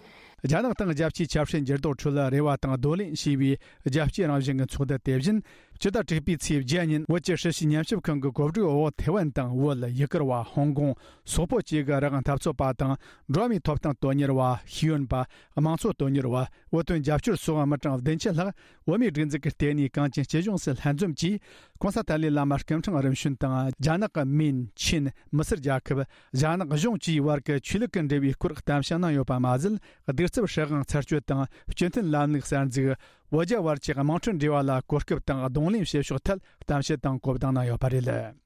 རྒྱ་ནག་དང་རྒྱལ་སྤྱིའི་ཆབ་སྲིད་འགྱུར་ལྡོག་ཁྲོད་རེ་བ་དང་གདོང་ལེན་བྱས་པའི་རྒྱལ་སྤྱིའི་རང་བཞིན་གྱི་ཚོགས་འདུ་དེ་བཞིན། ཕྱི་ཟླ་དྲུག་པའི་ཚེས་བརྒྱད་ཉིན་བོད་ཀྱི་ཧྲི་ཞི་ཉམས་ཞིབ་ཁང་གི་གོ་སྒྲིག་འོག་ཐེ་ཝན་དང་བོད། ཡུ་གུར་བ། ཧོང་ཀོང་། སོག་པོ་བཅས་ཀྱི་རང་དབང་འཐབ་རྩོད་པ་དང་། འགྲོ་བ་མིའི་ཐོབ་ཐང་དོན་གཉེར་བ། ཤེས་ཡོན་པ། དམངས་གཙོ་དོན་གཉེར་བ། བོད་དོན་རྒྱབ་སྐྱོར་སོགས་མི་གྲངས་བདུན་ཅུ་ལྷག་བོད་མིའི་སྒྲིག་འཛུགས་ཀྱི་ལྟེ་གནས་གངས་ཅན་སྐྱིད་གཤོངས་སུ་ལྷན་འཛོམས་ཀྱིས། ྋགོང་ས་ཏཱ་ལའི་བླ་མ་སྐུ་ཕྲེང་རིམ་བྱོན་དང་། རྒྱ་ནག་གི་མིན། ཆིན། མི་སེར་རྒྱལ་ཁབ། རྒྱ་ནག་གཞུང་བཅས་བར་གྱི་ཆོས་ལུགས་ཀྱི་འབྲེལ་བའི་སྐོར་གཏམ་བཤད་གནང་ཡོད་པ་མ་ཟད། གདུག་རྩུབ་སྲིད་དབང་ཚར་གཅོད་དང་། སྤྱི་མཐུན་ལམ་ལུགས་གསར་འཛུགས། བོད་རྒྱ་བར་གྱི་དམངས་ཁྲོད་འབྲེལ་བ་ལ་གོ་སྐབས་དང་གདོང་ལེན་བྱེད་ཕྱོགས་ཐད་གཏམ་བཤད་དང་གོ་བརྡ་གནང་ཡོད་པ་རེད།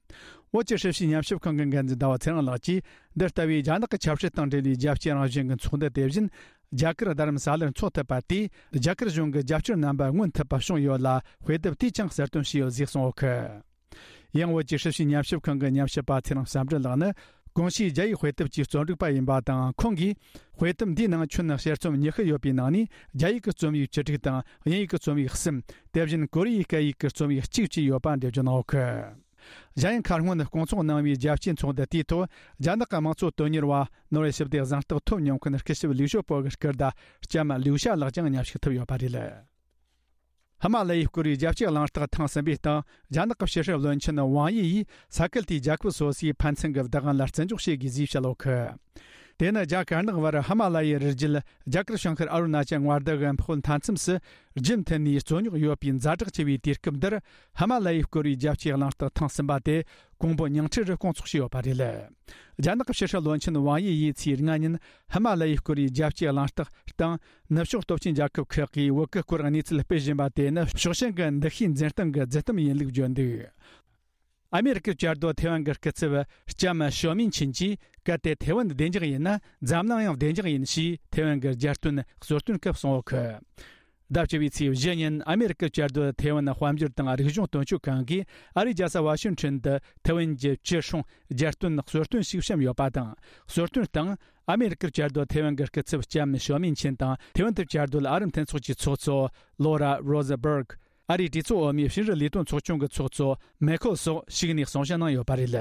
བོད་ཀྱི་ཧྲི་ཞིའི་ཉམས་ཞིབ་ཁང་གི་འགན་འཛིན་ཟླ་བ་ཚེ་རིང་ལགས་ཀྱིས། འདི་ལྟ་བུའི་རྒྱ་ནག་གི་ཆབ་སྲིད་དང་འབྲེལ་བའི་རྒྱལ་སྤྱིའི་རང་བཞིན་གྱི་ཚོགས་འདུ་དེ་བཞིན། རྒྱ་གར་རྡ་རམ་ས་ལར་འཚོགས་ཐུབ་པ་དེས། རྒྱ་གར་གཞུང་གི་རྒྱབ་སྐྱོར་རྣམ་པ་མངོན་ཐུབ་པ་བྱུང་ཡོད་ལ། དཔེ་དེབ་དེས་ཀྱང་གསལ་སྟོན་བྱས་ཡོད་ཟེར་གསུངས་ཡོད་ཀི། ཡང་བོད་ཀྱི་ཧྲི་ཞིའི་ཉམས་ཞིབ་ཁང་གི་ཉམས་ཞིབ་པ་ཚེ་རིང་བསམ་འགྲུབ་ལགས་ནི། གོང་ཞུས་རྒྱ་ཡིག་དཔེ་དེབ་ཀྱི་རྩོམ་སྒྲིག་པ་ཡིན་པ་དང་། ཁོང་གིས། དཔེ་དེབ་འདིའི་ནང་ཁྱོན་ནས་དཔྱད་རྩོམ་ཉི་ཤུ་ཡོད་པའི་ནང་ནས། རྒྱ་ཡིག་གི་རྩོམ་ཡིག་བཅུ་དྲུག་དང་། དབྱིན་ཡིག་གི་རྩོམ་ཡིག་གསུམ། དེ་བཞིན་ཀོ་རི་ཡའི་སྐད་ཡིག་གི་རྩོམ་ཡིག་གཅིག་བཅས་ཡོད་པ་འགྲེལ་བརྗོད་གནང་ཡོད་ཀི། གཞན་ཡང་མཁར་སྔོན་སྐོང་ཚོགས་གནང་བའི་རྒྱལ་སྤྱིའི་ཚོགས་འདུ་དེའི་ཐོག་རྒྱ་ནག་གི་དམངས་གཙོ་དོན་གཉེར་བ། ནོར་ཝེ་ཞི་བདེ་གཟེངས་རྟགས་ཐོབ་མྱོང་མཁན་སྐུ་ཞབས་ལིའུ་ཞའོ་པོ་གི་སྐུ་ཟླ་ལྕམ་ལིའུ་ཞ་ལགས་ཀྱང་མཉམ་ཞུགས་ཐུབ་ཡོད་པ་རེད། ཧི་མ་ལ་ཡའི་སྐོར་བའི་རྒྱལ་སྤྱིའི་གླེང་སྟེགས་ཐེངས་གསུམ་པའི་སྟེང་། རྒྱ་ནག་གི་ཕྱི་སྲིད་བློན་ཆེན་ཝང་དབྱི་ཡིས་ས་ཁུལ་དེའི་རྒྱལ་ཁབ་སོ་སོའི་ཕན་ཚུན་གྱི་བདག་དབང་ལ་བརྩི་འཇོག་བྱེད་དགོས་ཞེས་བཤད་ཡོད་ཀི། དེ་ནི་རྒྱ་དཀར་ནག་བར་ཧི་མ་ལ་ཡའི་རི་རྒྱུད་རྒྱ་གར་བྱང་ཤར་ཨ་རུ་ན་ཅལ་མངའ་སྡེ་གི་ཕོག་མཐའ་མཚམས་སུ། རྒྱུན་མཐུད་ནས་རྩོད་རྙོག་ཡོད་པའི་ཛ་དྲག་ཆེ་བའི་དུས་སྐབས་འདིར། ཧི་མ་ལ་ཡའི་སྐོར་བའི་རྒྱལ་སྤྱིའི་གླེང་སྟེགས་ཐེངས་གསུམ་པ་དེ་ཀོང་པོ་ཉིང་ཁྲི་རུ་སྐོང་ཚོགས་བྱས་ཡོད་པ་རེད། རྒྱ་ནག་གི་ཕྱི་སྲིད་བློན་ཆེན་ཝང་དབྱི་ཡིས་ཚེས་ལྔ་ཉིན་ཧི་མ་ལ་ཡའི་སྐོར་བའི་རྒྱལ་སྤྱིའི་གླེང་སྟེགས་སྟེང་། ནུབ་ཕྱོགས་སྟོབས་ཆེན་རྒྱལ་ཁབ་ཁག་གིས་བོད་ཀྱི་སྐོར་གནས་ཚུལ་སྤེལ་བཞིན་པ་དེ་ནི་ཕྱོགས་ཞེན་གྱི་འདུ་ཤེས་འཛིན་སྟངས་ཀྱི་རྫུན་གཏམ་ཡིན་ལུགས་བརྗོད་འདུག། ཨ་མེ་རི་ཀའི་བཅའ་སྡོད་ཐེ་ཝན་གྱི་སྐུ་ཚབ་ལྕམ་ཞོ་མིན་ཆིན་གྱིས། གལ་ཏེ་ཐེ་ཝན་བདེ་འཇགས་ཡིན་ན། འཛམ་གླིང་ཡང་བདེ་འཇགས་ཡིན་ཞེས་ཐེ་ཝན་གྱི་རྒྱལ་སྟོན་གཙོ་སྟོན་སྐབས་གསུངས་ཡོད་ཀི། ཟླ་བཅུ་བའི་ཚེས་བཞི་ཉིན་ཨ་མེ་རི་ཀའི་བཅའ་སྡོད་ཐེ་ཝན་དཔལ་འབྱོར་དང་རིག་གཞུང་དོན་གཅོད་ཁང་གིས་ཨ་རིའི་རྒྱལ་ས་ཝ་ཤིང་ཊོན་དུ་ཐེ་ཝན་གྱི་སྤྱི་སྲུང་རྒྱལ་སྟོན་གཙོ་སྟོན་ཞིག་བཤམས་ཡོད་པ་དང་། གཙོ་སྟོན་སྟེང་ཨ་མེ་རི་ཀའི་བཅའ་སྡོད་ཐེ་ཝན་གྱི་སྐུ་ཚབ་ལྕམ་ཞོ་མིན་ཆིན་དང་། ཐེ་ཝན་དུ་བཅའ་སྡོད་ཨ་རི་མཐུན་ཚོགས་ཀྱི་ཚོགས་གཙོ་ལོ་ར་རོ་ཟ་བྷར་གྷི། ཨ་རིའི་གྲོས་ཚོགས་འོག་མའི་ཕྱི་འབྲེལ་ལས་དོན་ཚོགས་ཆུང་གི་ཚོགས་གཙོ་མེ་ཁོ་སོགས་ཞུགས་ནས་གསུང་བཤད་གནང་ཡོད་པ་རེད།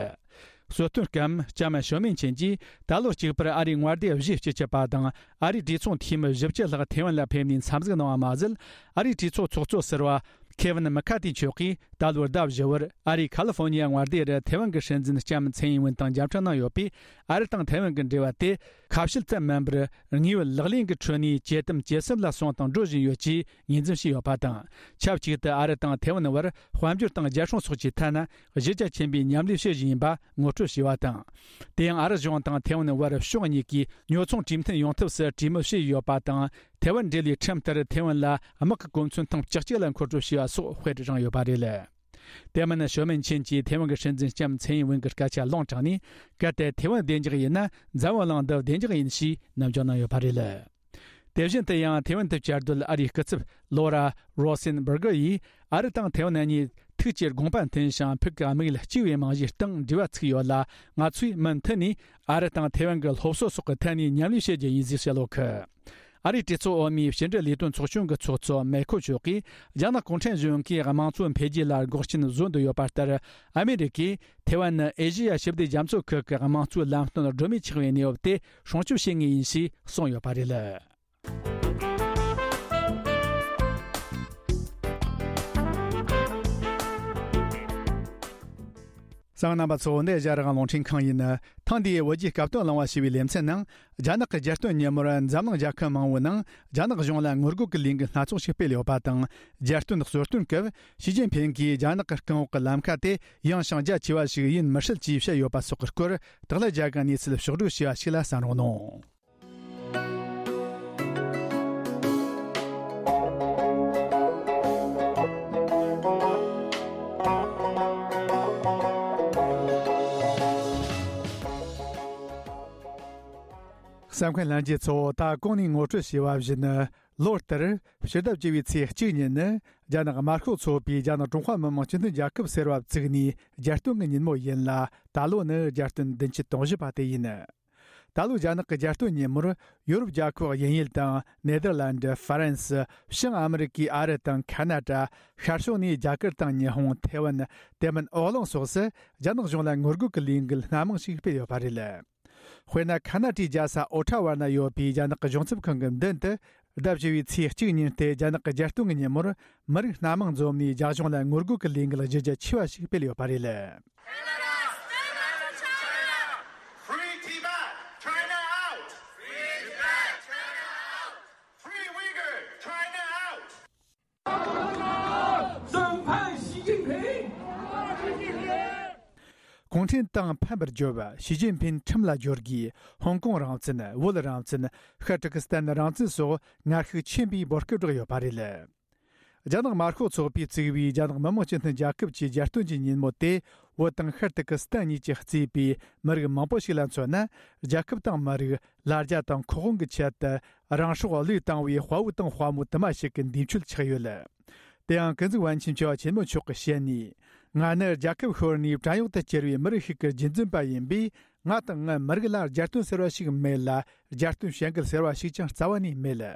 གཙོ་སྟོན་སྐབས་ལྕམ་ཞོ་མིན་ཆིན་གྱིས། ད་ལོ་གཅིག་པར་ཨ་རིའི་མངའ་སྡེ་བཞི་བཅུ་གཅིག་པ་དང་། ཨ་རིའི་གྲོས་ཚོགས་འཐུས་མི་བཞི་བཅུ་ལྷག་ཐེ་ཝན་ལ་ཕེབས་ནས་འཚམས་གཟིགས་གནང་བ་མ་ཟད། ཨ་རིའི་གྲོས་ཚོགས་ཚོགས་གཙོ་ཟུར་པ་ཁེ་ཝིན་མི་ཁ་ཏི་མཆོག་གིས། ད་ལོའི་ཟླ་བཞི་པར་ཨ་རིའི་ཁ་ལི་ཧྥོ་ནི་ཡ་མངའ་སྡེ་རུ་ཐེ་ཝན་གྱི་སྲིད་འཛིན་ལྕམ་ཚའེ་ཡིན་ཝུན་དང་མཇལ་འཕྲད་གནང་ཡོད་པས། ཨ་རི་དང་ཐེ་ཝན་གྱི་འབྲེལ་བ་དེ་ཁ་བཤད་ཙམ་མིན་པར། དངོས་ཡོད་ལག་ལེན་གྱི་ཁྲོད་ནས་ཇེ་དམ་ཇེ་ཟབ་ལ་སོང་དང་འགྲོ་བཞིན་ཡོད་ཅེས་ངོས་འཛིན་བྱས་ཡོད་པ་དང་། ཆབས་ཅིག་ཏུ་ཨ་རི་དང་ཐེ་ཝན་བར་དཔལ་འབྱོར་དང་རྒྱལ་སྲུང་སོགས་ཀྱི་ཐད་ན་གཞི་རྒྱ་ཆེན་པོས་མཉམ་ལས་བྱེད་བཞིན་ཡིན་པ་ངོ་སྤྲོད་བྱས་པ་དང་། དེ་ཡང་ཨ་རི་གཞུང་དང་ཐེ་ཝན་བར་ཕྱོགས་གཉིས་ཀས་ཉོ་ཚོང་གྲོས་མཐུན་ཡོང་ཐབས་སུ་གྲོས་མོལ་བྱས་ཡོད་པ་དང་། ཐེ་ཝན་འབྲེལ་བའི་ཁྲིམས་ལྟར་ཐེ་ཝན་ལ་དམག་གི་གོ་མཚོན་ཐེངས་བཅུ་གཅིག་ལ་མཁོ་སྤྲོད་བྱས་པ་སོགས་དཔེར་བཞག་ཡོད་པ་རེད། དེ་མིན་ཞོ་མིན་ཆིན་གྱིས་ཐེ་ཝན་གྱི་སྲིད་འཛིན་ལྕམ་ཚའེ་ཡིན་ཝུན་གྱི་སྐད་ཆ་ལུང་དྲངས་ནས། གལ་ཏེ་ཐེ་ཝན་བདེ་འཇགས་ཡིན་ན། འཛམ་བུ་གླིང་འདི་བདེ་འཇགས་ཡིན་ཞེས་ནམ་འཇོག་གནང་ཡོད་པ་རེད། དེ་བཞིན་དུ་ཡང་ཐེ་ཝན་དུ་བཅའ་སྡོད་ཨ་རིའི་སྐུ་ཚབ་ལོ་ར་རོ་སེན་བྷར་གྷི་ཡིས། ཨ་རི་དང་ཐེ་ཝན་གཉིས་ཐུགས་ཀྱི་དགོངས་པ་མཐུན་ཞིང་ཕུགས་ཀྱི་དམིགས་ཡུལ་གཅིག་པའི་རྨང་གཞིའི་སྟེང་འབྲེལ་བ་ཚུགས་ཡོད་ལ། ང་ཚོས་མུ་མཐུད་ནས་ཨ་རི་དང་ཐེ་ཝན་གྱི་སློབ་གསོ་སོགས་ཀྱི་ཐད་ནས་མཉམ་ལས་བྱེད་རྒྱུ་ཡིན་ཞེས་བཤད་ཡོད་ཀི། ཨ་རིའི་གྲོས་ཚོགས་འོག་མའི་ཕྱི་འབྲེལ་ལས་དོན་ཚོགས་ཆུང་གི་ཚོགས་གཙོ་མེ་ཁོ་མཆོག་གིས། རྒྱ་ནག་གུང་ཁྲན་གཞུང་གིས་དམངས་གཙོ་འཕེལ་རྒྱས་ལ་འགོག་རྐྱེན་བཟོ་འདོད་ཡོད་པ་ལྟར། ཨ་མེ་རི་ཀས་ཐེ་ཝན་ནི་ཨེ་ཤེ་ཡ་ཞི་བདེ་རྒྱ་མཚོ་ཁུལ་གྱི་དམངས་གཙོའི་ལམ་སྟོན་སྒྲོན་མེ་ཆགས་པའི་གནས་བབ་དེ་སྲུང་སྐྱོབ་བྱེད་ངེས་ཡིན་ཞེས་གསུངས་ཡོད་པ་རེད། གསན་མཁན་རྣམ་པ་ཚོ། འདི་ཨེ་ཤ་ཡ་རང་དབང་རླུང་འཕྲིན་ཁང་ཡིན། ཐེངས་འདིའི་བོད་རྒྱའི་སྐབས་དོན་གླེང་བ་ཞེས་པའི་ལེ་ཚན་ནང་། རྒྱ་ནག་གི་རྒྱལ་སྟོན་ཉིན་མོར་འཛམ་གླིང་རྒྱལ་ཁབ་མང་བོའི་ནང་རྒྱ་ནག་གཞུང་ལ་ངོ་རྒོལ་གྱི་ལས་འགུལ་སྣ་ཚོགས་ཤིག་སྤེལ་ཡོད་པ་དང་། རྒྱལ་སྟོན་གཙོ་སྟོན་སྐབས་ཞི་ཅིན་ཕིང་གིས་རྒྱ་ནག་གི་རྐང་འོག་གི་ལམ་ཁ་དེ་ཡངས་ཤིང་རྒྱ་ཆེ་བ་ཞིག་ཡིན་མི་སྲིད་ཅེས་བཤད་ཡོད་པ་སོགས་ཀྱི་སྐོར། དག་ལ་རྒྱ་གར་གནས་ཚུལ་ཕྱོགས་བསྒྲིགས་བྱས་པ་ཞིག་ལ་གསན་རོགས་གནང་། གསན་མཁན་ལྷན་རྒྱས་ཚོ། ད་གོང་ནས་ངོ་སྤྲོད་བྱས་པ་བཞིན། ལོ་ལྟར་ཕྱི་ཟླ་བཅུ་པའི་ཚེས་གཅིག་ཉིན་ནི། རྒྱ་ནག་དམར་ཤོག་ཚོགས་པས་རྒྱ་ནག་ཀྲུང་ཧྭ་མི་དམངས་སྤྱི་མཐུན་རྒྱལ་ཁབ་ཟེར་བ་བཙུགས་ནས་རྒྱལ་སྟོན་གྱི་ཉིན་མོ་ཡིན་ལ། ད་ལོ་ནི་རྒྱལ་སྟོན་བདུན་ཅུ་དོན་བཞི་པ་དེ་ཡིན། ད་ལོའི་རྒྱ་ནག་གི་རྒྱལ་སྟོན་ཉིན་མོར། ཡོ་རོབ་རྒྱལ་ཁབ་དབྱིན་ཡུལ་དང་ནེ་དར་ལན་ཌི། ཧྥ་རན་སི། བྱང་ཨ་མི་རི་ཀའི་ཨ་རི་དང་ཁ་ན་ཌ། ཤར་ཕྱོགས་ནས་རྒྱ་གར་དང་ཉི་ཧོང་། ཐེ་ཝན། དེ་མིན་ཨོ་གླིང་སོགས་སུ་རྒྱ་ནག་གཞུང་ལ་ངོ་རྒོལ་གྱི་ལས་འགུལ་སྣ་མང་ཞིག་སྤེལ་ཡོད་པ་རེད། དཔེར་ན། ཁ་ན་ཌའི་རྒྱལ་ས་ཨོ་ཊ་ཝ་ན་ཡོད་པའི་རྒྱ་ནག་གི་གཞུང་ཚབ་ཁང་གི་མདུན་དུ། ཟླ་བཞི་པའི་ཚེས་གཅིག་ཉིན་ཏེ་རྒྱ་ནག་གི་རྒྱལ་སྟོན་གྱི་ཉིན་མོར། མི་རིགས་སྣ་མང་འཛོམས་ནས་རྒྱ་གཞུང་ལ་ངོ་རྒོལ་གྱི་ལས་འགུལ་གཞི་རྒྱ་ཆེ་བ་ཞིག་སྤེལ་ཡོད་པ་རེད། Free Tibet! China out! Free Tibet! China out! Free Uyghur! China out! 审判习近平! གུང་ཁྲན་ཏང་ཕམ་པར་བརྗོད། ཞི་ཅིན་ཕིན་ཁྲིམས་ལ་སྦྱོར་དགོས། ཧོང་ཀོང་རང་བཙན། བོད་རང་བཙན། ཤར་ཏུར་ཀི་སི་ཐན་རང་བཙན་སོགས་ངར་ཤུགས་ཆེན་པོས་འབོད་སྐུལ་བསྒྲགས་ཡོད་པ་རེད། རྒྱ་ནག་དམར་ཤོག་ཚོགས་པས་བཙུགས་པའི་རྒྱ་ནག་མི་དམངས་སྤྱི་མཐུན་རྒྱལ་ཁབ་ཀྱི་རྒྱལ་སྟོན་གྱི་ཉིན་མོ་དེ་བོད་དང་ཤར་ཏུར་ཀི་སི་ཐན་གཉིས་ཀྱིས་གཙོས་པའི་མི་རིགས་མང་པོ་ཞིག་ལ་མཚོན་ན། རྒྱལ་ཁབ་དང་མི་རིགས། ལ་རྒྱ་དང་ཁོ་དབང་གི་ཆེད་དུ་རང་སྲོག་བློས་བཏང་བའི་དཔའ་བོ་དང་དཔའ་མོ་དུ་མ་ཞིག་གི་འདས་མཆོད་ཆགས་ཡོད། དེ་ཡང་ཀུན་གཟིགས་པཎ་ཆེན་ཆེ་བ་ཆེན་མོ་མཆོག་གིས་བཤད་ནས། ང་ནི་རྒྱལ་ཁབ་ཤོར་ནས་བྲན་གཡོག་ཏུ་གྱུར་བའི་མི་རིགས་ཤིག་གི་རྒྱུད་འཛིན་པ་ཡིན་པས། ང་དང་ངའི་མི་རིགས་ལ་རྒྱལ་སྟོན་ཟེར་བ་ཞིག་མེད་ལ། རྒྱལ་སྟོན་བྱེད་འགུལ་ཟེར་བ་ཞིག་ཀྱང་རྩ་བ་ནས་མེད།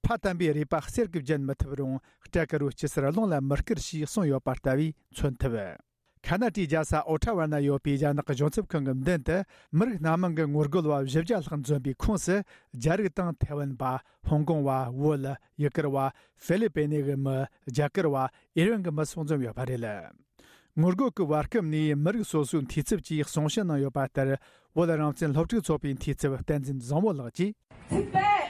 ཕ་དམ་པའི་རུས་པ་གསེར་གྱིས་བརྒྱན་མི་ཐུབ་རུང་། སྐྲ་དཀར་རོ་སྐྱི་སེར་རླུང་ལ་མི་བསྐུར་ཞེས་གསུངས་ཡོད་པ་ལྟ་བུས་མཚོན་ཐུབ། ཁ་ན་ཏྲའི་རྒྱལ་ས་ཨོ་ཁྲ་ཝ་ན་ཡོད་པའི་རྒྱ་ནག་གི་གཞུང་ཚབ་ཁང་གི་མདུན་དུ། མི་རིགས་སྣ་མང་གི་ངོ་རྒོལ་བ་བཞི་བརྒྱ་ལྷག་འཛོམས་པའི་ཁོངས་སུ། རྒྱ་རིགས་དང་ཐའེ་ཝན་པ། ཧོང་ཀོང་བ། བོད། ཡུ་གུར་བ། ཧྥི་ལི་པེ་ནེ་གི་མི། རྒྱ་གར་བ། ཨི་རན་གྱི་མི་སོགས་འཛོམས་ཡོད་པ་རེད། ངོ་རྒོལ་གྱི་བར་སྐབས་ནས་མི་རིགས་སོ་སོའི་འཐུས་ཚབ་ཀྱིས་གསུང་བཤད་གནང་ཡོད་པ་ལྟར། བོད་རང་བཙན་སློབ་ཕྲུག་ཚོགས་པའི་འཐུས་ཚབ་བསྟན་འཛིན་བཟང་བོ་ལགས་ཀྱིས། Tibet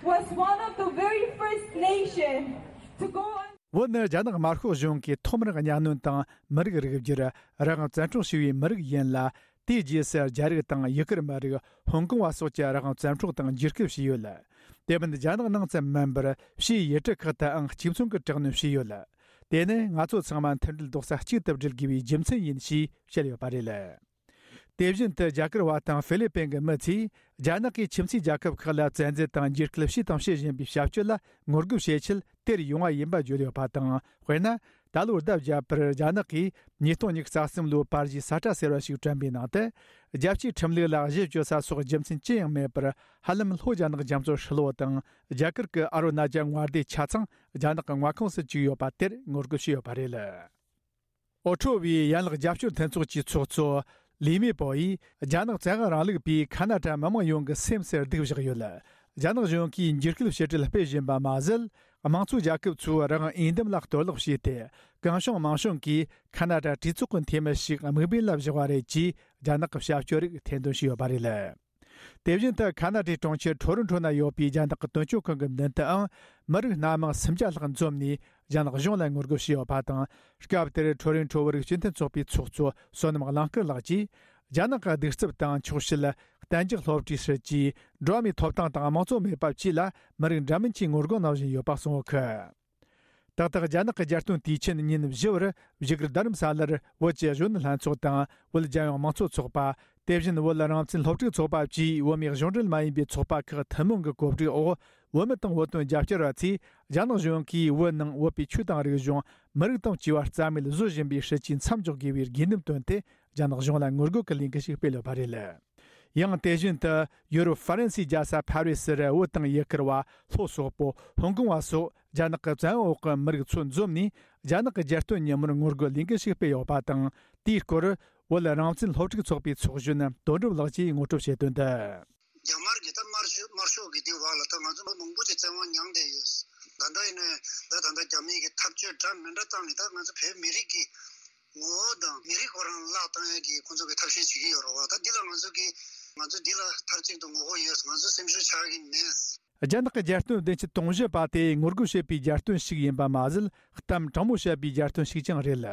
was one of the very first nation to go on. བོད་ནི་རྒྱ་ནག་དམར་ཤོག་གཞུང་གིས་ཐོག་མར་གཉའ་གནོན་དང་མི་རིགས་རིགས་བསྒྱུར། རང་དབང་བཙན་འཕྲོག་བྱས་པའི་མི་རིགས་ཡིན་ལ། དེའི་རྗེས་སུ་རྒྱ་རིགས་དང་ཡུ་གུར་མི་རིགས། ཧོང་ཀོང་བ་སོགས་ཀྱི་རང་དབང་བཙན་འཕྲོག་དང་འཇིགས་སྐུལ་བྱས་ཡོད། དེ་མིན་རྒྱ་ནག་ནང་ཙམ་མིན་པར་ཕྱིའི་ཡུལ་གྲུ་ཁག་ཏུའང་གཅིག་མཚུངས་ཀྱི་དྲག་གནོན་བྱས་ཡོད། དེ་ནི་ང་ཚོ་ཚང་མ་མཐུན་སྒྲིལ་རྡོག་རྩ་གཅིག་ཏུ་སྒྲིལ་དགོས་པའི་རྒྱུ་མཚན་ཡིན་ཞེས་བཤད་ཡོད་པ་རེད། དེ་བཞིན་དུ་རྒྱ་གར་བ་དང་ཧྥི་ལི་པིན་གྱི་མི་ཚོས་རྒྱ་ནག་གིས་ཁྱིམ་མཚེས་རྒྱལ་ཁབ་ཁག་ལ་བཙན་འཛུལ་དང་འཇིགས་སྐུལ་བྱས་དང་བྱེད་བཞིན་པའི་བྱ་སྤྱོད་ལ་ངོ་རྒོལ་བྱེད་ཆེད་དེར་ཡོང་བ་ཡིན་པ་བརྗོད་ཡོད་པ་དང་། དཔེར་ན། ད་ལོར་ཟླ་བརྒྱད་པར་རྒྱ་ནག་གིས་ཉིས་སྟོང་ཉི་ཤུ་རྩ་གསུམ་ལོའི་པར་གཞས་གསལ་བསྒྲགས་ཟེར་བ་ཞིག་བསྐྲུན་པའི་ནང་དུ། རྒྱལ་སྤྱིའི་ཁྲིམས་ལུགས་ལ་གཞི་བཅོལ་ས་སོགས་རྒྱུ་མཚན་ཅི་ཡང་མེད་པར། ཧ་ལམ་ལྷོ་རྒྱ་ནག་རྒྱ་མཚོ་ཧྲིལ་བོ་དང་རྒྱ་གར་གྱི་ཨ་རུ་ན་ཅལ་མངའ་སྡེ་ཆ་ཚང་རྒྱ་ནག་གི་མངའ་ཁོངས་སུ་བཅུག་ཡོད་པ་དེར་ངོ་རྒོལ་བྱས་ཡོད་པ་རེད། ཨོ་ཁྲོ་བའི་ཡན་ལག་རྒྱབ་སྐྱོར་མཐུན་ཚོགས་ཀྱི་ཚོགས་གཙོ་ལི་མེ་པོ་ཡིས། རྒྱ་ནག་བཙན་དབང་རིང་ལུགས་པས་ཁ་ན་ཏྲ་མི་དམངས་ཡོངས་ཀྱི་སེམས་སུ་སྡུག་བཞག་ཡོད། རྒྱ་ནག་གཞུང་གིས་འཇིགས་སྐུལ་ཞི་བྲལ་སྤེལ་བཞིན་པ་མ་ཟད། དམངས་གཙོའི་རྒྱལ་ཁབ་ཚོའི་རང་དབང་འོས་འདེམས་ལ་གཏོར་བརླག་བྱས་ཏེ། གང་བྱུང་མང་བྱུང་གིས་ཁ་ན་ཏྲ་གྲོས་ཚོགས་ཀྱི་འཐུས་མི་ཞིག་དམིགས་འབེན་ལ་བཞག་པ་རེད་ཅེས། རྒྱ་ནག་གི་བྱ་སྤྱོད་རིགས་ཐེར་འདོན་བྱས་ཡོད་པ་རེད། དེ་བཞིན་དུ་ཁ་ན་ཏའི་གྲོང་ཁྱེར་ཁྲོ་རོ་ཁྲོ་ན་ཡོད་པའི་རྒྱ་ནག་གི་དོན་གཅོད་ཁང་གི་མདུན་དུའང་མི་རིགས་སྣ་མང་སུམ་བརྒྱ་ལྷག་འཛོམས་ནས་རྒྱ་ནག་གཞུང་ལ་ངོ་རྒོལ་བྱས་ཡོད་པ་དང་། སྐབས་དེར་ཁྲོ་རོ་ཁྲོ་བོད་རིགས་སྤྱི་མཐུན་ཚོགས་པའི་ཚོགས་གཙོ་བསོད་ནམས་གླིང་དཀར་ལགས་ཀྱིས། རྒྱ་ནག་གི་གདུག་རྩུབ་དང་འཁྱོག་བཤད། གཏན་འཇགས་སློབ་གྲྭའི་སྲིད་ཇུས། འགྲོ་བ་མིའི་ཐོབ་ཐང་དང་དམངས་གཙོ་མེད་པ་བཅས་ལ་མི་རིགས་འདྲ་མིན་གྱིས་ངོ་རྒོལ་གནང་བཞིན་ཡོད་པ་གསུངས་ཡོད་གི། ཏག་ཏག་རྒྱ་ནག་གི་རྒྱལ་སྟོན་དུས་ཆེན་ཉིན་བཞི་བར་བཞུགས་སྒར་རྡ་རམ་ས་ལར་བོད་ཀྱི་གཞོན་ནུ་ལྷན་ཚོགས་དང་བོད་རྒྱལ་ཡོངས་དམངས་གཙོ་ཚོགས་པ། དེ་བཞིན་བོད་རང་བཙན་སློབ་ཕྲུག་ཚོགས་པ་བཅས་བོད་མིའི་གཞུང་འབྲེལ་མ་ཡིན་པའི་ཚོགས་པ་ཁག་ཐུན་མོང་གི་གོ་སྒྲིག་འོག་བོད་མི་དང་བོད་དོན་རྒྱབ་སྐྱོར་བ་ཚོས་རྒྱ་ནག་གཞུང་གིས་བོད་ནང་བོད་པའི་ཆོས་དང་རིག་གཞུང་། མི་རིགས་དང་བཅས་པ་རྩ་མེད་བཟོ་བཞིན་པའི་སྲིད་ཇུས་མཚམས་འཇོག་དགོས་པའི་དགོས་འདུན་བཏོན་ཏེ་རྒྱ་ནག་གཞུང་ལ་ངོ་རྒོལ་གྱི་ལས་འགུལ་ཞིག་སྤེལ་ཡོད་པ་རེད། ཡང་དེ་བཞིན་དུ་ཡུ་རོབ་ཧྥ་རན་སིའི་རྒྱལ་ས་ཕ་རི་སིར་བོད་དང་ཡུ་གུར་བ། ལྷོ་སོག་པོ། ཧོང་ཀོང་བ་སོགས་རྒྱ་ནག་གི་བཙན་འོག་གི་མི་རིགས་ཚོ་འཛོམས་ནས་རྒྱ་ནག་གི་རྒྱལ་སྟོན་ཉིན་མོར་ངོ་རྒོལ་ལས་འགུལ་ཞིག་སྤེལ་ཡོད་པ་དང་། དེའི་སྐོར་བོད་རང་བཙན་སློབ་ཕྲུག་ཚོགས་པའི་ཚོགས་གཞོན་དོན་གྲུབ་ལགས་ཀྱིས་ངོ་སྤྲོད་བྱས་དོན་དུ། རྒྱ་དམར་གྱིས་ད་དམར་ཤོག་དམར་ཤོག་གི་དེ་བར་ལ་ད་ང་ཚོ་མི་མང་པོ་ཅིག་བཙན་དབང་མྱངས་བསྡད་ཡོད། ད་ལྟ་ཡིན་ནའི་ད་ད་ལྟ་རྒྱ་མི་གི་འཐབ་རྩོད་འདྲ་མི་འདྲ་བཏང་ནས་ད་ང་ཚོ་བོད་མི་རིགས་ཀྱི་ངོ་བོ་དང་མི་རིགས་ཁོ་རང་བརླག་བཏང་ཡ་གི་ཁོང་ཚོ་གི་ཐབས་ཤེས་བྱེད་ཀྱི་ཡོད་རེད་བ། ད་འདི་ལ་ང་ཚོ་གི་ང་ཚོ་འདི་ལ་མཐའ་གཅིག་ཏུ་ངོ་རྒོལ་ཡོད། ང་ཚོ་སེམས་ཤུགས་ཆག་གི་མེད། རྒྱ་ནག་གི་རྒྱལ་སྟོན་བདུན་ཅུ་དོན་བཞི་པ་དེ་ངོ་རྒོལ་བྱེད་པའི་རྒྱལ་སྟོན་ཞིག་ཡིན་པ་མ་ཟད། གཏམ་དྲང་མོ་བཤད་པའི་རྒྱལ་སྟོན་ཞིག་ཀྱང་རེད།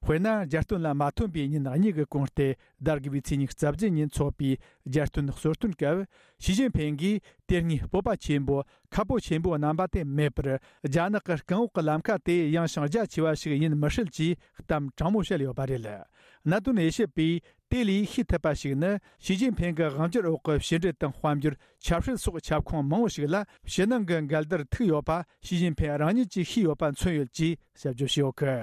དཔེར་ན། རྒྱལ་སྟོན་ལ་མ་ཐོན་པའི་ཉིན་གཉིས་ཀྱི་གོང་སྟེ། ཟླ་དགུ་པའི་ཚེས་ཉི་ཤུ་རྩ་བརྒྱད་ཉིན་འཚོགས་པའི་རྒྱལ་སྟོན་གསོལ་སྟོན་སྐབས། ཞི་ཅིན་ཕིང་གིས་དེ་སྔའི་སྤོབས་པ་ཆེན་པོ། ཁ་ཕོ་ཆེན་པོ་རྣམ་པ་དེ་མེད་པར། རྒྱ་ནག་གི་རྐང་འོག་གི་ལམ་ཁ་དེ་ཡངས་ཤིང་རྒྱ་ཆེ་བ་ཞིག་ཡིན་མི་སྲིད་ཅེས་གཏམ་དྲང་མོ་བཤད་ཡོད་པ་རེད། གནད་དོན་དབྱེ་ཞིབ་པས་དེ་ལས་ཤེས་ཐུབ་པ་ཞིག་ནི། ཞི་ཅིན་ཕིང་གི་དབང་སྒྱུར་འོག་གི་ཕྱི་འབྲེལ་དང་དཔལ་འབྱོར། ཆབ་སྲིད་སོགས་ཁྱབ་ཁོངས་མང་བོ་ཞིག་ལ་ཕྱི་ནང་གི་འགལ་ཟླར་ཐུག་ཡོད་པ་ཞི་ཅིན་ཕིང་རང་ཉིད་ཀྱིས་ཤེས་ཡོད་པ་མཚོན་ཡོད་ཅེས་དཔྱད་བརྗོད་བྱས་ཡོད་གི།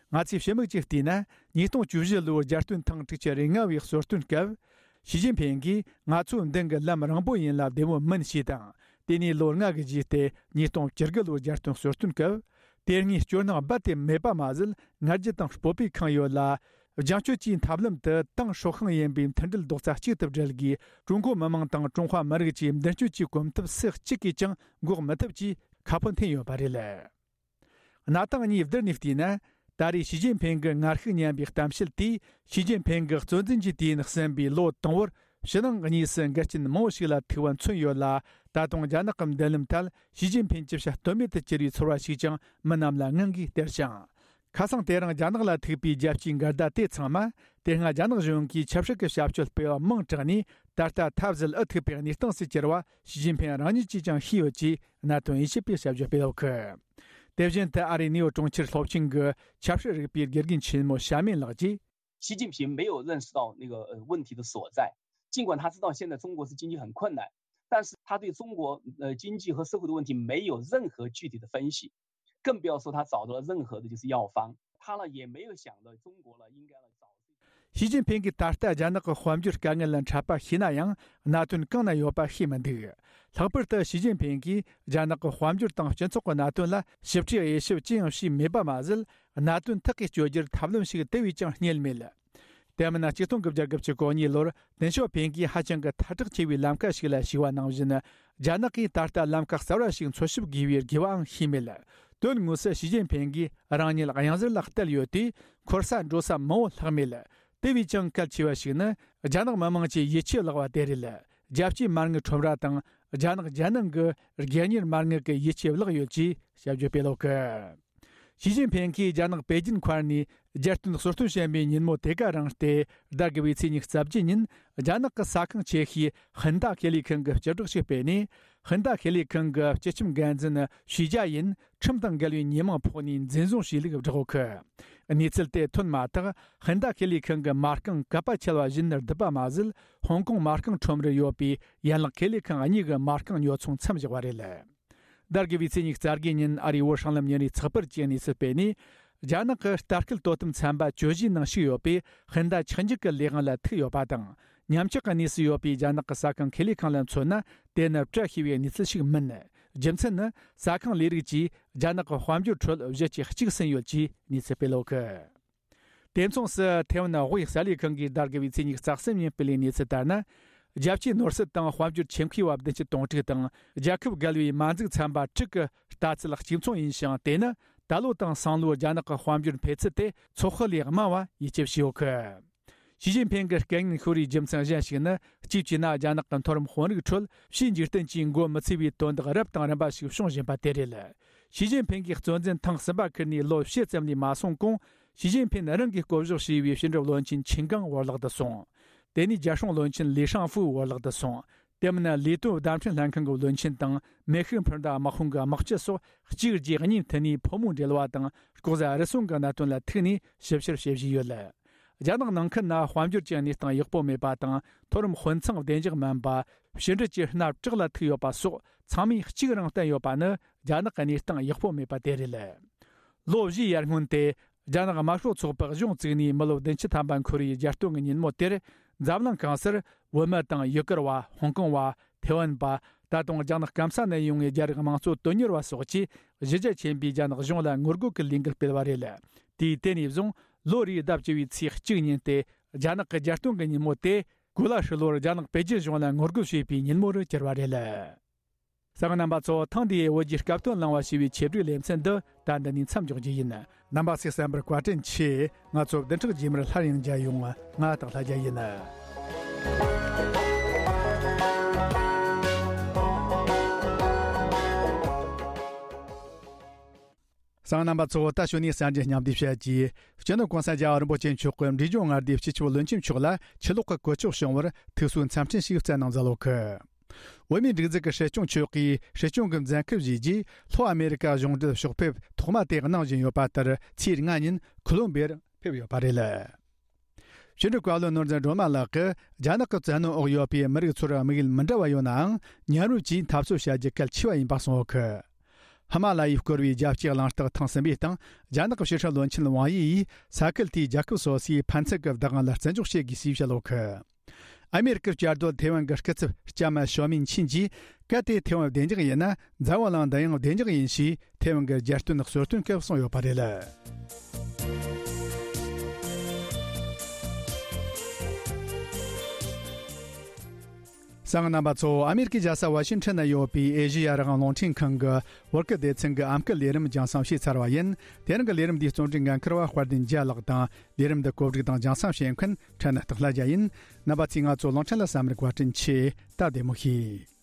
ང་ཚོས་ཕྱི་མིག་ཅིག་བལྟས་ན། ཉིས་སྟོང་བཅུ་བཞི་ལོའི་རྒྱལ་སྟོན་ཐེངས་དྲུག་ཅུ་རེ་ལྔ་བའི་གསོལ་སྟོན་སྐབས། ཞི་ཅིན་ཕིང་གིས་ང་ཚོའི་མདུན་གྱི་ལམ་རིང་པོ་ཡིན་ལ་བདེ་མོ་མིན་ཞེས་དང་། དེ་ནས་ལོ་ལྔ་གི་རྗེས་ཏེ་ཉིས་སྟོང་བཅུ་དགུ་ལོའི་རྒྱལ་སྟོན་གསོལ་སྟོན་སྐབས། དེ་སྔའི་སྐྱོ་སྣང་རྦད་དེ་མེད་པ་མ་ཟད། ང་རྒྱལ་དང་སྤོབས་པས་ཁེངས་ཡོད་ལ། རྒྱང་སྐྱོད་ཀྱི་ཐབས་ལམ་དུ་ཏང་ཧྲོ་ཤང་ཡིན་པའི་མཐུན་སྒྲིལ་རྡོག་རྩ་གཅིག་ཏུ་སྒྲིལ་དགོས། ཀྲུང་གོ་མི་དམངས་དང་ཀྲུང་ཧྭ་མི་རིགས་ཀྱི་མདུན་སྐྱོད་ཀྱི་གོམ་སྟབས་སུ་གཅིག་གིས་ཀྱང་འགོག་མི་ཐུབ་ཅེས་ཁ་ཕོ་འཐེན་ཡོད་པ་རེད། གནས་སྟངས་གཉིས་བསྡུར་ནས་བལྟས་ན། ད་རེས་ཞི་ཅིན་ཕིང་གི་ངར་ཤུགས་ཉམས་པའི་གཏམ་བཤད་དེས། ཞི་ཅིན་ཕིང་གི་གཙོ་འཛིན་གྱི་དུས་ཡུན་ཟིན་པའི་ལོ་དང་པོར། ཕྱི་ནང་གཉིས་སུ་འགལ་རྐྱེན་མང་བོ་ཞིག་ལ་ཐུག་པ་མཚོན་ཡོད་ལ། ད་དུང་རྒྱ་ནག་གི་མདུན་ལམ་ཐད་ཞི་ཅིན་ཕིང་ཅི་བྱ་གཏོལ་མེད་དུ་གྱུར་བའི་ཚོར་བ་ཞིག་ཀྱང་མི་རྣམས་ལ་ངང་གིས་སྟེར་ཞིང་། ཁ་སང་དེ་རིང་རྒྱ་ནག་ལ་ཐུག་པའི་རྒྱལ་སྤྱིའི་འགལ་ཟླ་དེ་ཚང་མ། དེ་སྔ་རྒྱ་ནག་གཞུང་གིས་ཆབ་སྲིད་ཀྱི་བྱ་སྤྱོད་སྤེལ་བ་མང་དྲགས་ནས། ད་ལྟ་ཐབས་ཟད་འུ་ཐུག་པའི་གནས་སྟངས་སུ་གྱུར་བ་ཞི་ཅིན་ཕིང་རང་ཉིད་ཀྱིས་ཀྱང་ཤེས་ཡོད་ཅེས་གནད་དོན་དབྱེ་ཞིབ་པས་དཔྱད་བརྗོད་སྤེལ་ཡོད་གི། དེ་བཞིན་དུ་ཨ་རིའི་ནིའུ་ཡོག་གྲོང་ཁྱེར་སློབ་ཆེན་གྱི་ཆབ་སྲིད་རིག་པའི་དགེ་རྒན་ཆེན་མོ་ཞ་མེན་ལགས་ཀྱིས། 习近平没有认识到那个呃问题的所在，尽管他知道现在中国是经济很困难，但是他对中国呃经济和社会的问题没有任何具体的分析，更不要说他找到了任何的就是药方。他呢也没有想到中国呢应该呢找。 ཞི་ཅིན་ཕིང་གིས་ད་ལྟ་རྒྱ་ནག་གི་དཔལ་འབྱོར་དཀའ་ངལ་ལ་འཕྲད་པ་ཤེས་ན་ཡང་གནད་དོན་གང་ན་ཡོད་པ་ཤེས་མི་འདུག། ལྷག་པར་དུ་ཞི་ཅིན་ཕིང་གིས་རྒྱ་ནག་གི་དཔལ་འབྱོར་དང་སྤྱི་ཚོགས་ཀྱི་གནད་དོན་ལ་ཞིབ་ཕྲའི་དབྱེ་ཞིབ་ཅི་ཡང་བྱས་མེད་པ་མ་ཟད། གནད་དོན་ཐག་གིས་གཅོད་རྒྱུར་ཐབས་ལམ་ཞིག་དེ་བས་ཀྱང་རྙེད་མེད། དེ་མིན་ན་ཆིག་སྟོང་དགུ་བརྒྱ་དགུ་བཅུ་གོ་གཉིས་ལོར་ཏེང་ཞའོ་ཕིང་གིས་ཧ་ཅང་གི་ཐལ་དྲགས་ཆེ་བའི་ལམ་ཁ་ཞིག་ལ་ཞུགས་པ་ནང་བཞིན། རྒྱ་ནག་གིས་ད་ལྟ་ལམ་ཁ་གསར་བ་ཞིག་འཚོལ་ཞིབ་དགོས་པའི་དགོས་པའང་ཤེས་མེད། དོན་དངོས་སུ་ཞི་ཅིན་ཕིང་གིས་རང་ཉིད་གཡང་གཟར་ལ་གཏད་ཡོད་དུས་འཁོར་ས་འགྲོ་ས་མང་བོ་ལྷག་མེད། དེ་བས་ཀྱང་གལ་ཆེ་བ་ཞིག་ནི་རྒྱ་ནག་མི་དམངས་ཀྱི་ཡིད་ཆེས་བརླག་པ་དེ་རེད། རྒྱལ་སྤྱིའི་མ་དངུལ་ཁྲོམ་ར་དང་རྒྱ་ནག་རྒྱལ་ནང་གི་སྒེར་གཉེར་མ་དངུལ་གྱི་ཡིད་ཆེས་བརླག་ཡོད་ཅེས་ཞབས་ཞུ་སྤེལ་ཡོད་གི། ཞི་ཅིན་ཕིང་གིས་རྒྱ་ནག་པེ་ཅིན་མཁར་ནས་རྒྱལ་སྟོན་གསོལ་སྟོན་བྱེད་པའི་ཉིན་མོ་དེ་ག་རང་སྟེ། ཟླ་དགུ་བའི་ཚེས་ཉི་ཤུ་རྩ་བརྒྱད་ཉིན་རྒྱ་ནག་གི་ས་ཁང་ཆེ་ཤོས་ཧིན་ད་ཁེ་ལས་ཁང་གིས་སྤྱི་བསྒྲགས་ཤིག་སྤེལ་ནས། ཧིན་ད་ཁེ་ལས་ཁང་གི་སྤྱི་ཁྱབ་འགན་འཛིན་ཞུས་ཇཱ་ཡིན་ཁྲིམས་དང་འགལ་བའི་ཉེས་མིང་ཕོག་ནས་འཛིན་བཟུང་བྱས་ལུགས་བསྒྲགས་ཡོད་གི། གནས་ཚུལ་དེ་ཐོན་མ་ཐག་ཧིན་ད་ཁེ་ལས་ཁང་གི་མ་རྐང་གད་པ་ཆད་པ་བཞིན་བརྡིབས་པ་མ་ཟད། ཧོང་ཀོང་མ་རྐང་ཁྲོམ་རར་ཡོད་པའི་ཡན་ལག་ཁེ་ལས་ཁང་གཉིས་ཀྱི་མ་རྐང་ཉོ་ཚོང་མཚམས་བཞག་པ་རེད། ཟླ་དགུ་བའི་ཚེས་ཉི་ཤུ་རྩ་བརྒྱད་ཉིན་ཨ་རིའི་བོད་སྲང་ལམ་ཉིན་རེའི་ཚགས་པར་གྱིས་གནས་ཚུལ་སྤེལ་ནས། རྒྱ་ནག་གི་ལྟ་སྐུལ་དོ་དམ་ཚན་པ་གྱོད་གཞིའི་ནང་ཞུགས་ཡོད་པས་ཧིན་ད་ཆག་འཇིག་གི་ལས་དབང་ལ་ཐུག་ཡོད་པ་དང་། ཉམས་ཆག་གི་གནས་སུ་ཡོད་པའི་རྒྱ་ནག་གི་ས་ཁང་ཁེ་ལས་ཁང་ལ་མཚོན་ན། དེ་ནི་བཀྲ་ཤིས་པའི་གནས་ཚུལ་ཞིག་མིན། རྒྱུ་མཚན་ནི་ས་ཁང་ལས་རིགས་ཀྱིས་རྒྱ་ནག་གི་དཔལ་འབྱོར་ཁྲོད་གཞི་གཅིག་གཅིག་ཟིན་ཡོད་ཅེས་གནས་ཚུལ་སྤེལ་ཡོད་གི། དེ་མཚུངས་སུ་ཐེ་ཝན་དབུས་གསར་ལས་ཁང་གིས་ཟླ་དགུ་བའི་ཚེས་ཉི་ཤུ་རྩ་གསུམ་ཉིན་སྤེལ་བའི་གནས་ཚུལ་ལྟར་ན། རྒྱལ་སྤྱིའི་ནོར་སྲིད་དང་དཔལ་འབྱོར་ཆེད་མཁས་པ་བདུན་ཅུ་དོན་དྲུག་དང་རྒྱལ་ཁབ་བརྒལ་བའི་མ་འཛུགས་ཚན་པ་དྲུག་གི་ལྟ་ཚུལ་གཅིག་མཚུངས་ཡིན་ཞིང་། དེ་ནི་ད་ལོ་དང་སང་ལོའི་རྒྱ་ནག་གི་དཔལ་འབྱོར་འཕེལ་ཚུལ་དེ་ཚོད་དཔག་ལས་དམའ་བ་ཡིད་ཆེས་བྱས་ཡོད་གི། ཞི་ཅིན་ཕིང་གི་སྐད་སྙན་ཤོར་བའི་རྒྱུ་མཚན་གཞན་ཞིག་ནི། གཅིག་བྱས་ན་རྒྱ་ནག་གི་མཐོ་རིམ་དཔོན་རིགས་ཁྲོད་ཕྱིའི་འཇིག་རྟེན་གྱིས་མགོ་མི་ཚོས་པའི་དོན་དག་རབ་དང་རིམ་པ་ཞིག་བྱུང་བཞིན་པ་དེ་རེད། ཞི་ཅིན་ཕིང་གིས་གཙོ་འཛིན་ཐེངས་གསུམ་པ་ཁུར་ནས་ལོ་བཞི་ཙམ་ལས་མ་སོང་གོང་། ཞི་ཅིན་ཕིང་རང་གིས་བསྐོ་གཞག་བྱས་པའི་ཕྱི་འབྲེལ་བློན་ཆེན་ཆིན་ཀང་བོར་ལག་ཏུ་སོང་། དེ་ནས་རྒྱལ་སྲུང་བློན་ཆེན་ལི་ཧྲང་ཧྥུའུ་བོར་ལག་ཏུ་སོང་། དེ་མིན་ལས་དོན་བརྡ་འཕྲིན་ལྷན་ཁང་གི་བློན་ཆེན་དང་མེ་ཤུགས་འཕུར་མདའ་དམག་དཔུང་གི་དམག་སྤྱི་སོགས་གཅིག་རྗེས་གཉིས་མཐུད་ནས་ཕོ་མོའི་འབྲེལ་བ་དང་ལྐོག་ཟ་རུལ་སུངས་ཀྱི་གནད་དོན་ལ་ཐུག་ནས་ཞིབ་བཤེར་བྱེད་བཞིན་ཡོད། རྒྱ་ནག་ནང་ཁུལ་ན་དཔལ་འབྱོར་གྱི་གནས་སྟངས་ཡག་པོ་མེད་པ་དང་། མཐོ་རིམ་དཔོན་ཚང་བདེ་འཇགས་མིན་པ། ཕྱི་འབྲེལ་གྱི་མནའ་བྲག་ལ་ཐུག་ཡོད་པ་སོགས་ཚང་མས་གཅིག་རང་བསྟན་ཡོད་པ་ནི་རྒྱ་ནག་གི་གནས་སྟངས་ཡག་པོ་མེད་པ་དེ་རེད། ལོ་བཞིའི་ཡར་སྔོན་དེ། རྒྱ་ནག་དམར་ཤོག་ཚོགས་པ་གཞུང་བཙུགས་ནས་མི་ལོ་བདུན་ཅུ་ཐམ་པ་འཁོར་བའི་རྒྱལ་སྟོན་གྱི་ཉིན་མོ་དེར། འཛམ་གླིང་གང་སར་བོད་མི་དང་ཡུ་གུར་བ། ཧོང་ཀོང་བ། ཐེ་ཝན་པ། ད་དུང་རྒྱ་ནག་སྐམ་ས་ནས་ཡོང་བའི་རྒྱ་རིགས་དམངས་གཙོ་དོན་གཉེར་བ་སོགས་ཀྱིས་གཞི་རྒྱ་ཆེན་པོས་རྒྱ་ནག་གཞུང་ལ་ངོ་རྒོལ་གྱི་ལས་འགུལ་སྤེལ་བ་རེད། དུས་དེ་ནས་བཟུང་ལོ་རེའི་ཟླ་བཅུ་བའི་ཚེས་གཅིག་ཉིན་ཏེ། རྒྱ་ནག་གི་རྒྱལ་སྟོན་གྱི་ཉིན་མོ་དེ། གོ་ལ་ཧྲིལ་བོར་རྒྱ་ནག་པེ་ཅིན་གཞུང་ལ་ངོ་རྒོལ་བྱེད་པའི་ཉིན་མོ་རུ་གྱུར་བ་རེད། གསན་མཁན་རྣམ་པ་ཚོ། ཐེངས་འདིའི་བོད་ཀྱི་སྐབས་དོན་གླེང་བ་ཞེས་པའི་ཆེད་བསྒྲིགས་ལེ་ཚན་འདི་ད་འདི་ནས་མཚམས་འཇོག་རྒྱུ་ཡིན། རྣམ་པ་ཚོས་གསན་པར་བཀའ་དྲིན་ཆེ། ང་ཚོ་བདུན་ཕྲག་རྗེས་མར་སླར་ཡང་མཇལ་ཡོང་། ང་སྟག་ལྷ་རྒྱལ་ཡིན། གསན་མཁན་རྣམ་པ་ཚོ། ད་ཞུ་ནས་གསར་འགྱུར་སྙིང་བསྡུས་བཤད་ཀྱིས། སྤྱི་ནོར་གོང་ས་རྒྱལ་བ་རིན་པོ་ཆེ་མཆོག་གིས་འབྲས་ལྗོངས་མངའ་སྡེའི་སྤྱི་ཁྱབ་བློན་ཆེན་མཆོག་ལ་ཆུ་ལོག་གི་གོ་སྐབས་བྱུང་བར་ཐུགས་གསོའི་འཚམས་འཕྲིན་ཞིག་སྩལ་གནང་མཛད་ཡོད་གི། བོད་མིའི་སྒྲིག་འཛུགས་ཀྱི་སྲིད་སྐྱོང་མཆོག་གིས་སྲིད་སྐྱོང་གི་མཛད་འཁུལ་བཞེས་རྗེས། ལྷོ་ཨ་མེ་རི་ཀ་གཞུང་འབྲེལ་ཕྱོགས་ཕེབས་ཐོག་མ་དེ་གནང་བཞིན་ཡོད་པ་ལྟར། ཚེས་ལྔ་ཉིན་ཁོ་ལོམ་བི་ཡར་ཕེབས་ཡོད་པ་རེད། ཕྱི་དྲིལ་བཀའ་བློན་ནོར་འཛིན་སྒྲོལ་མ་ལགས་ཀྱིས། རྒྱ་ནག་གི་བཙན་གནོན་འོག་ཡོད་པའི་མི་རིགས་ཚོར་དམིགས་ཡུལ་མི་འདྲ་བ་ཡོད་ནའང་། མཉམ་རུབ་ཀྱིས་འཐབ་རྩོད་བྱ་རྒྱུ་གལ་ཆེ་བ་ཡིན་པ་གསུངས་ཡོད་གི། ཧི་མ་ལ་ཡས་བསྐོར་བའི་རྒྱལ་སྤྱིའི་གླེང་སྟེགས་ཐེངས་གསུམ་པའི་སྟེང་། རྒྱ་ནག་གི་ཕྱི་སྲིད་བློན་ཆེན་ཝང་དབྱི་ཡིས་ས་ཁུལ་དེའི་རྒྱལ་ཁབ་སོ་སོའི་ཕན་ཚུན་གྱི་བདག་དབང་ལ་བརྩི་འཇོག་བྱེད་དགོས་ཞེས་བཤད་ཡོད་གི། ཨ་མེ་རི་ཀའི་བཅའ་སྡོད་ཐེ་ཝན་གྱི་སྐུ་ཚབ་ལྕམ་ཞའོ་མིན་ཆིན་གྱིས། གལ་ཏེ་ཐེ་ཝན་བདེ་འཇགས་ཡིན་ན། འཛམ་བུ་གླིང་འདི་ཡང་བདེ་འཇགས་ཡིན་ཞེས་ཐེ་ཝན་གྱི་རྒྱལ་སྟོན་གསོལ་སྟོན་སྐབས་གསུངས་ཡོད་པ་རེད། གསན་མཁན་རྣམ་པ་ཚོ། ཨ་མེ་རི་ཀའི་རྒྱལ་ས་ཝ་ཤིང་ཊོན་ན་ཡོད་པའི་ཨེ་ཤེ་ཡ་རང་དབང་རླུང་འཕྲིན་ཁང་གི་བོད་སྐད་སྡེ་ཚན་གྱི་ཨམ་སྐད་ལས་རིམ་རྒྱང་སྲིང་བྱས་ཚར་བ་ཡིན། དེ་རིང་གི་ལས་རིམ་འདིའི་རྩོམ་སྒྲིག་འགན་འཁུར་བ་དཔལ་ལྡན་རྒྱལ་ལགས་དང་། ལས་རིམ་འདི་གོ་སྒྲིག་དང་རྒྱང་སྲིང་བྱེད་མཁན་ཕྲན་ན་སྟག་ལྷ་རྒྱལ་ཡིན། རྣམ་པ་ཚོས་ང་ཚོ་གླིང་ཕྲན་ལ་གསན་པར་བཀའ་དྲིན་ཆེ། ད་བདེ་མོ་བྱོས།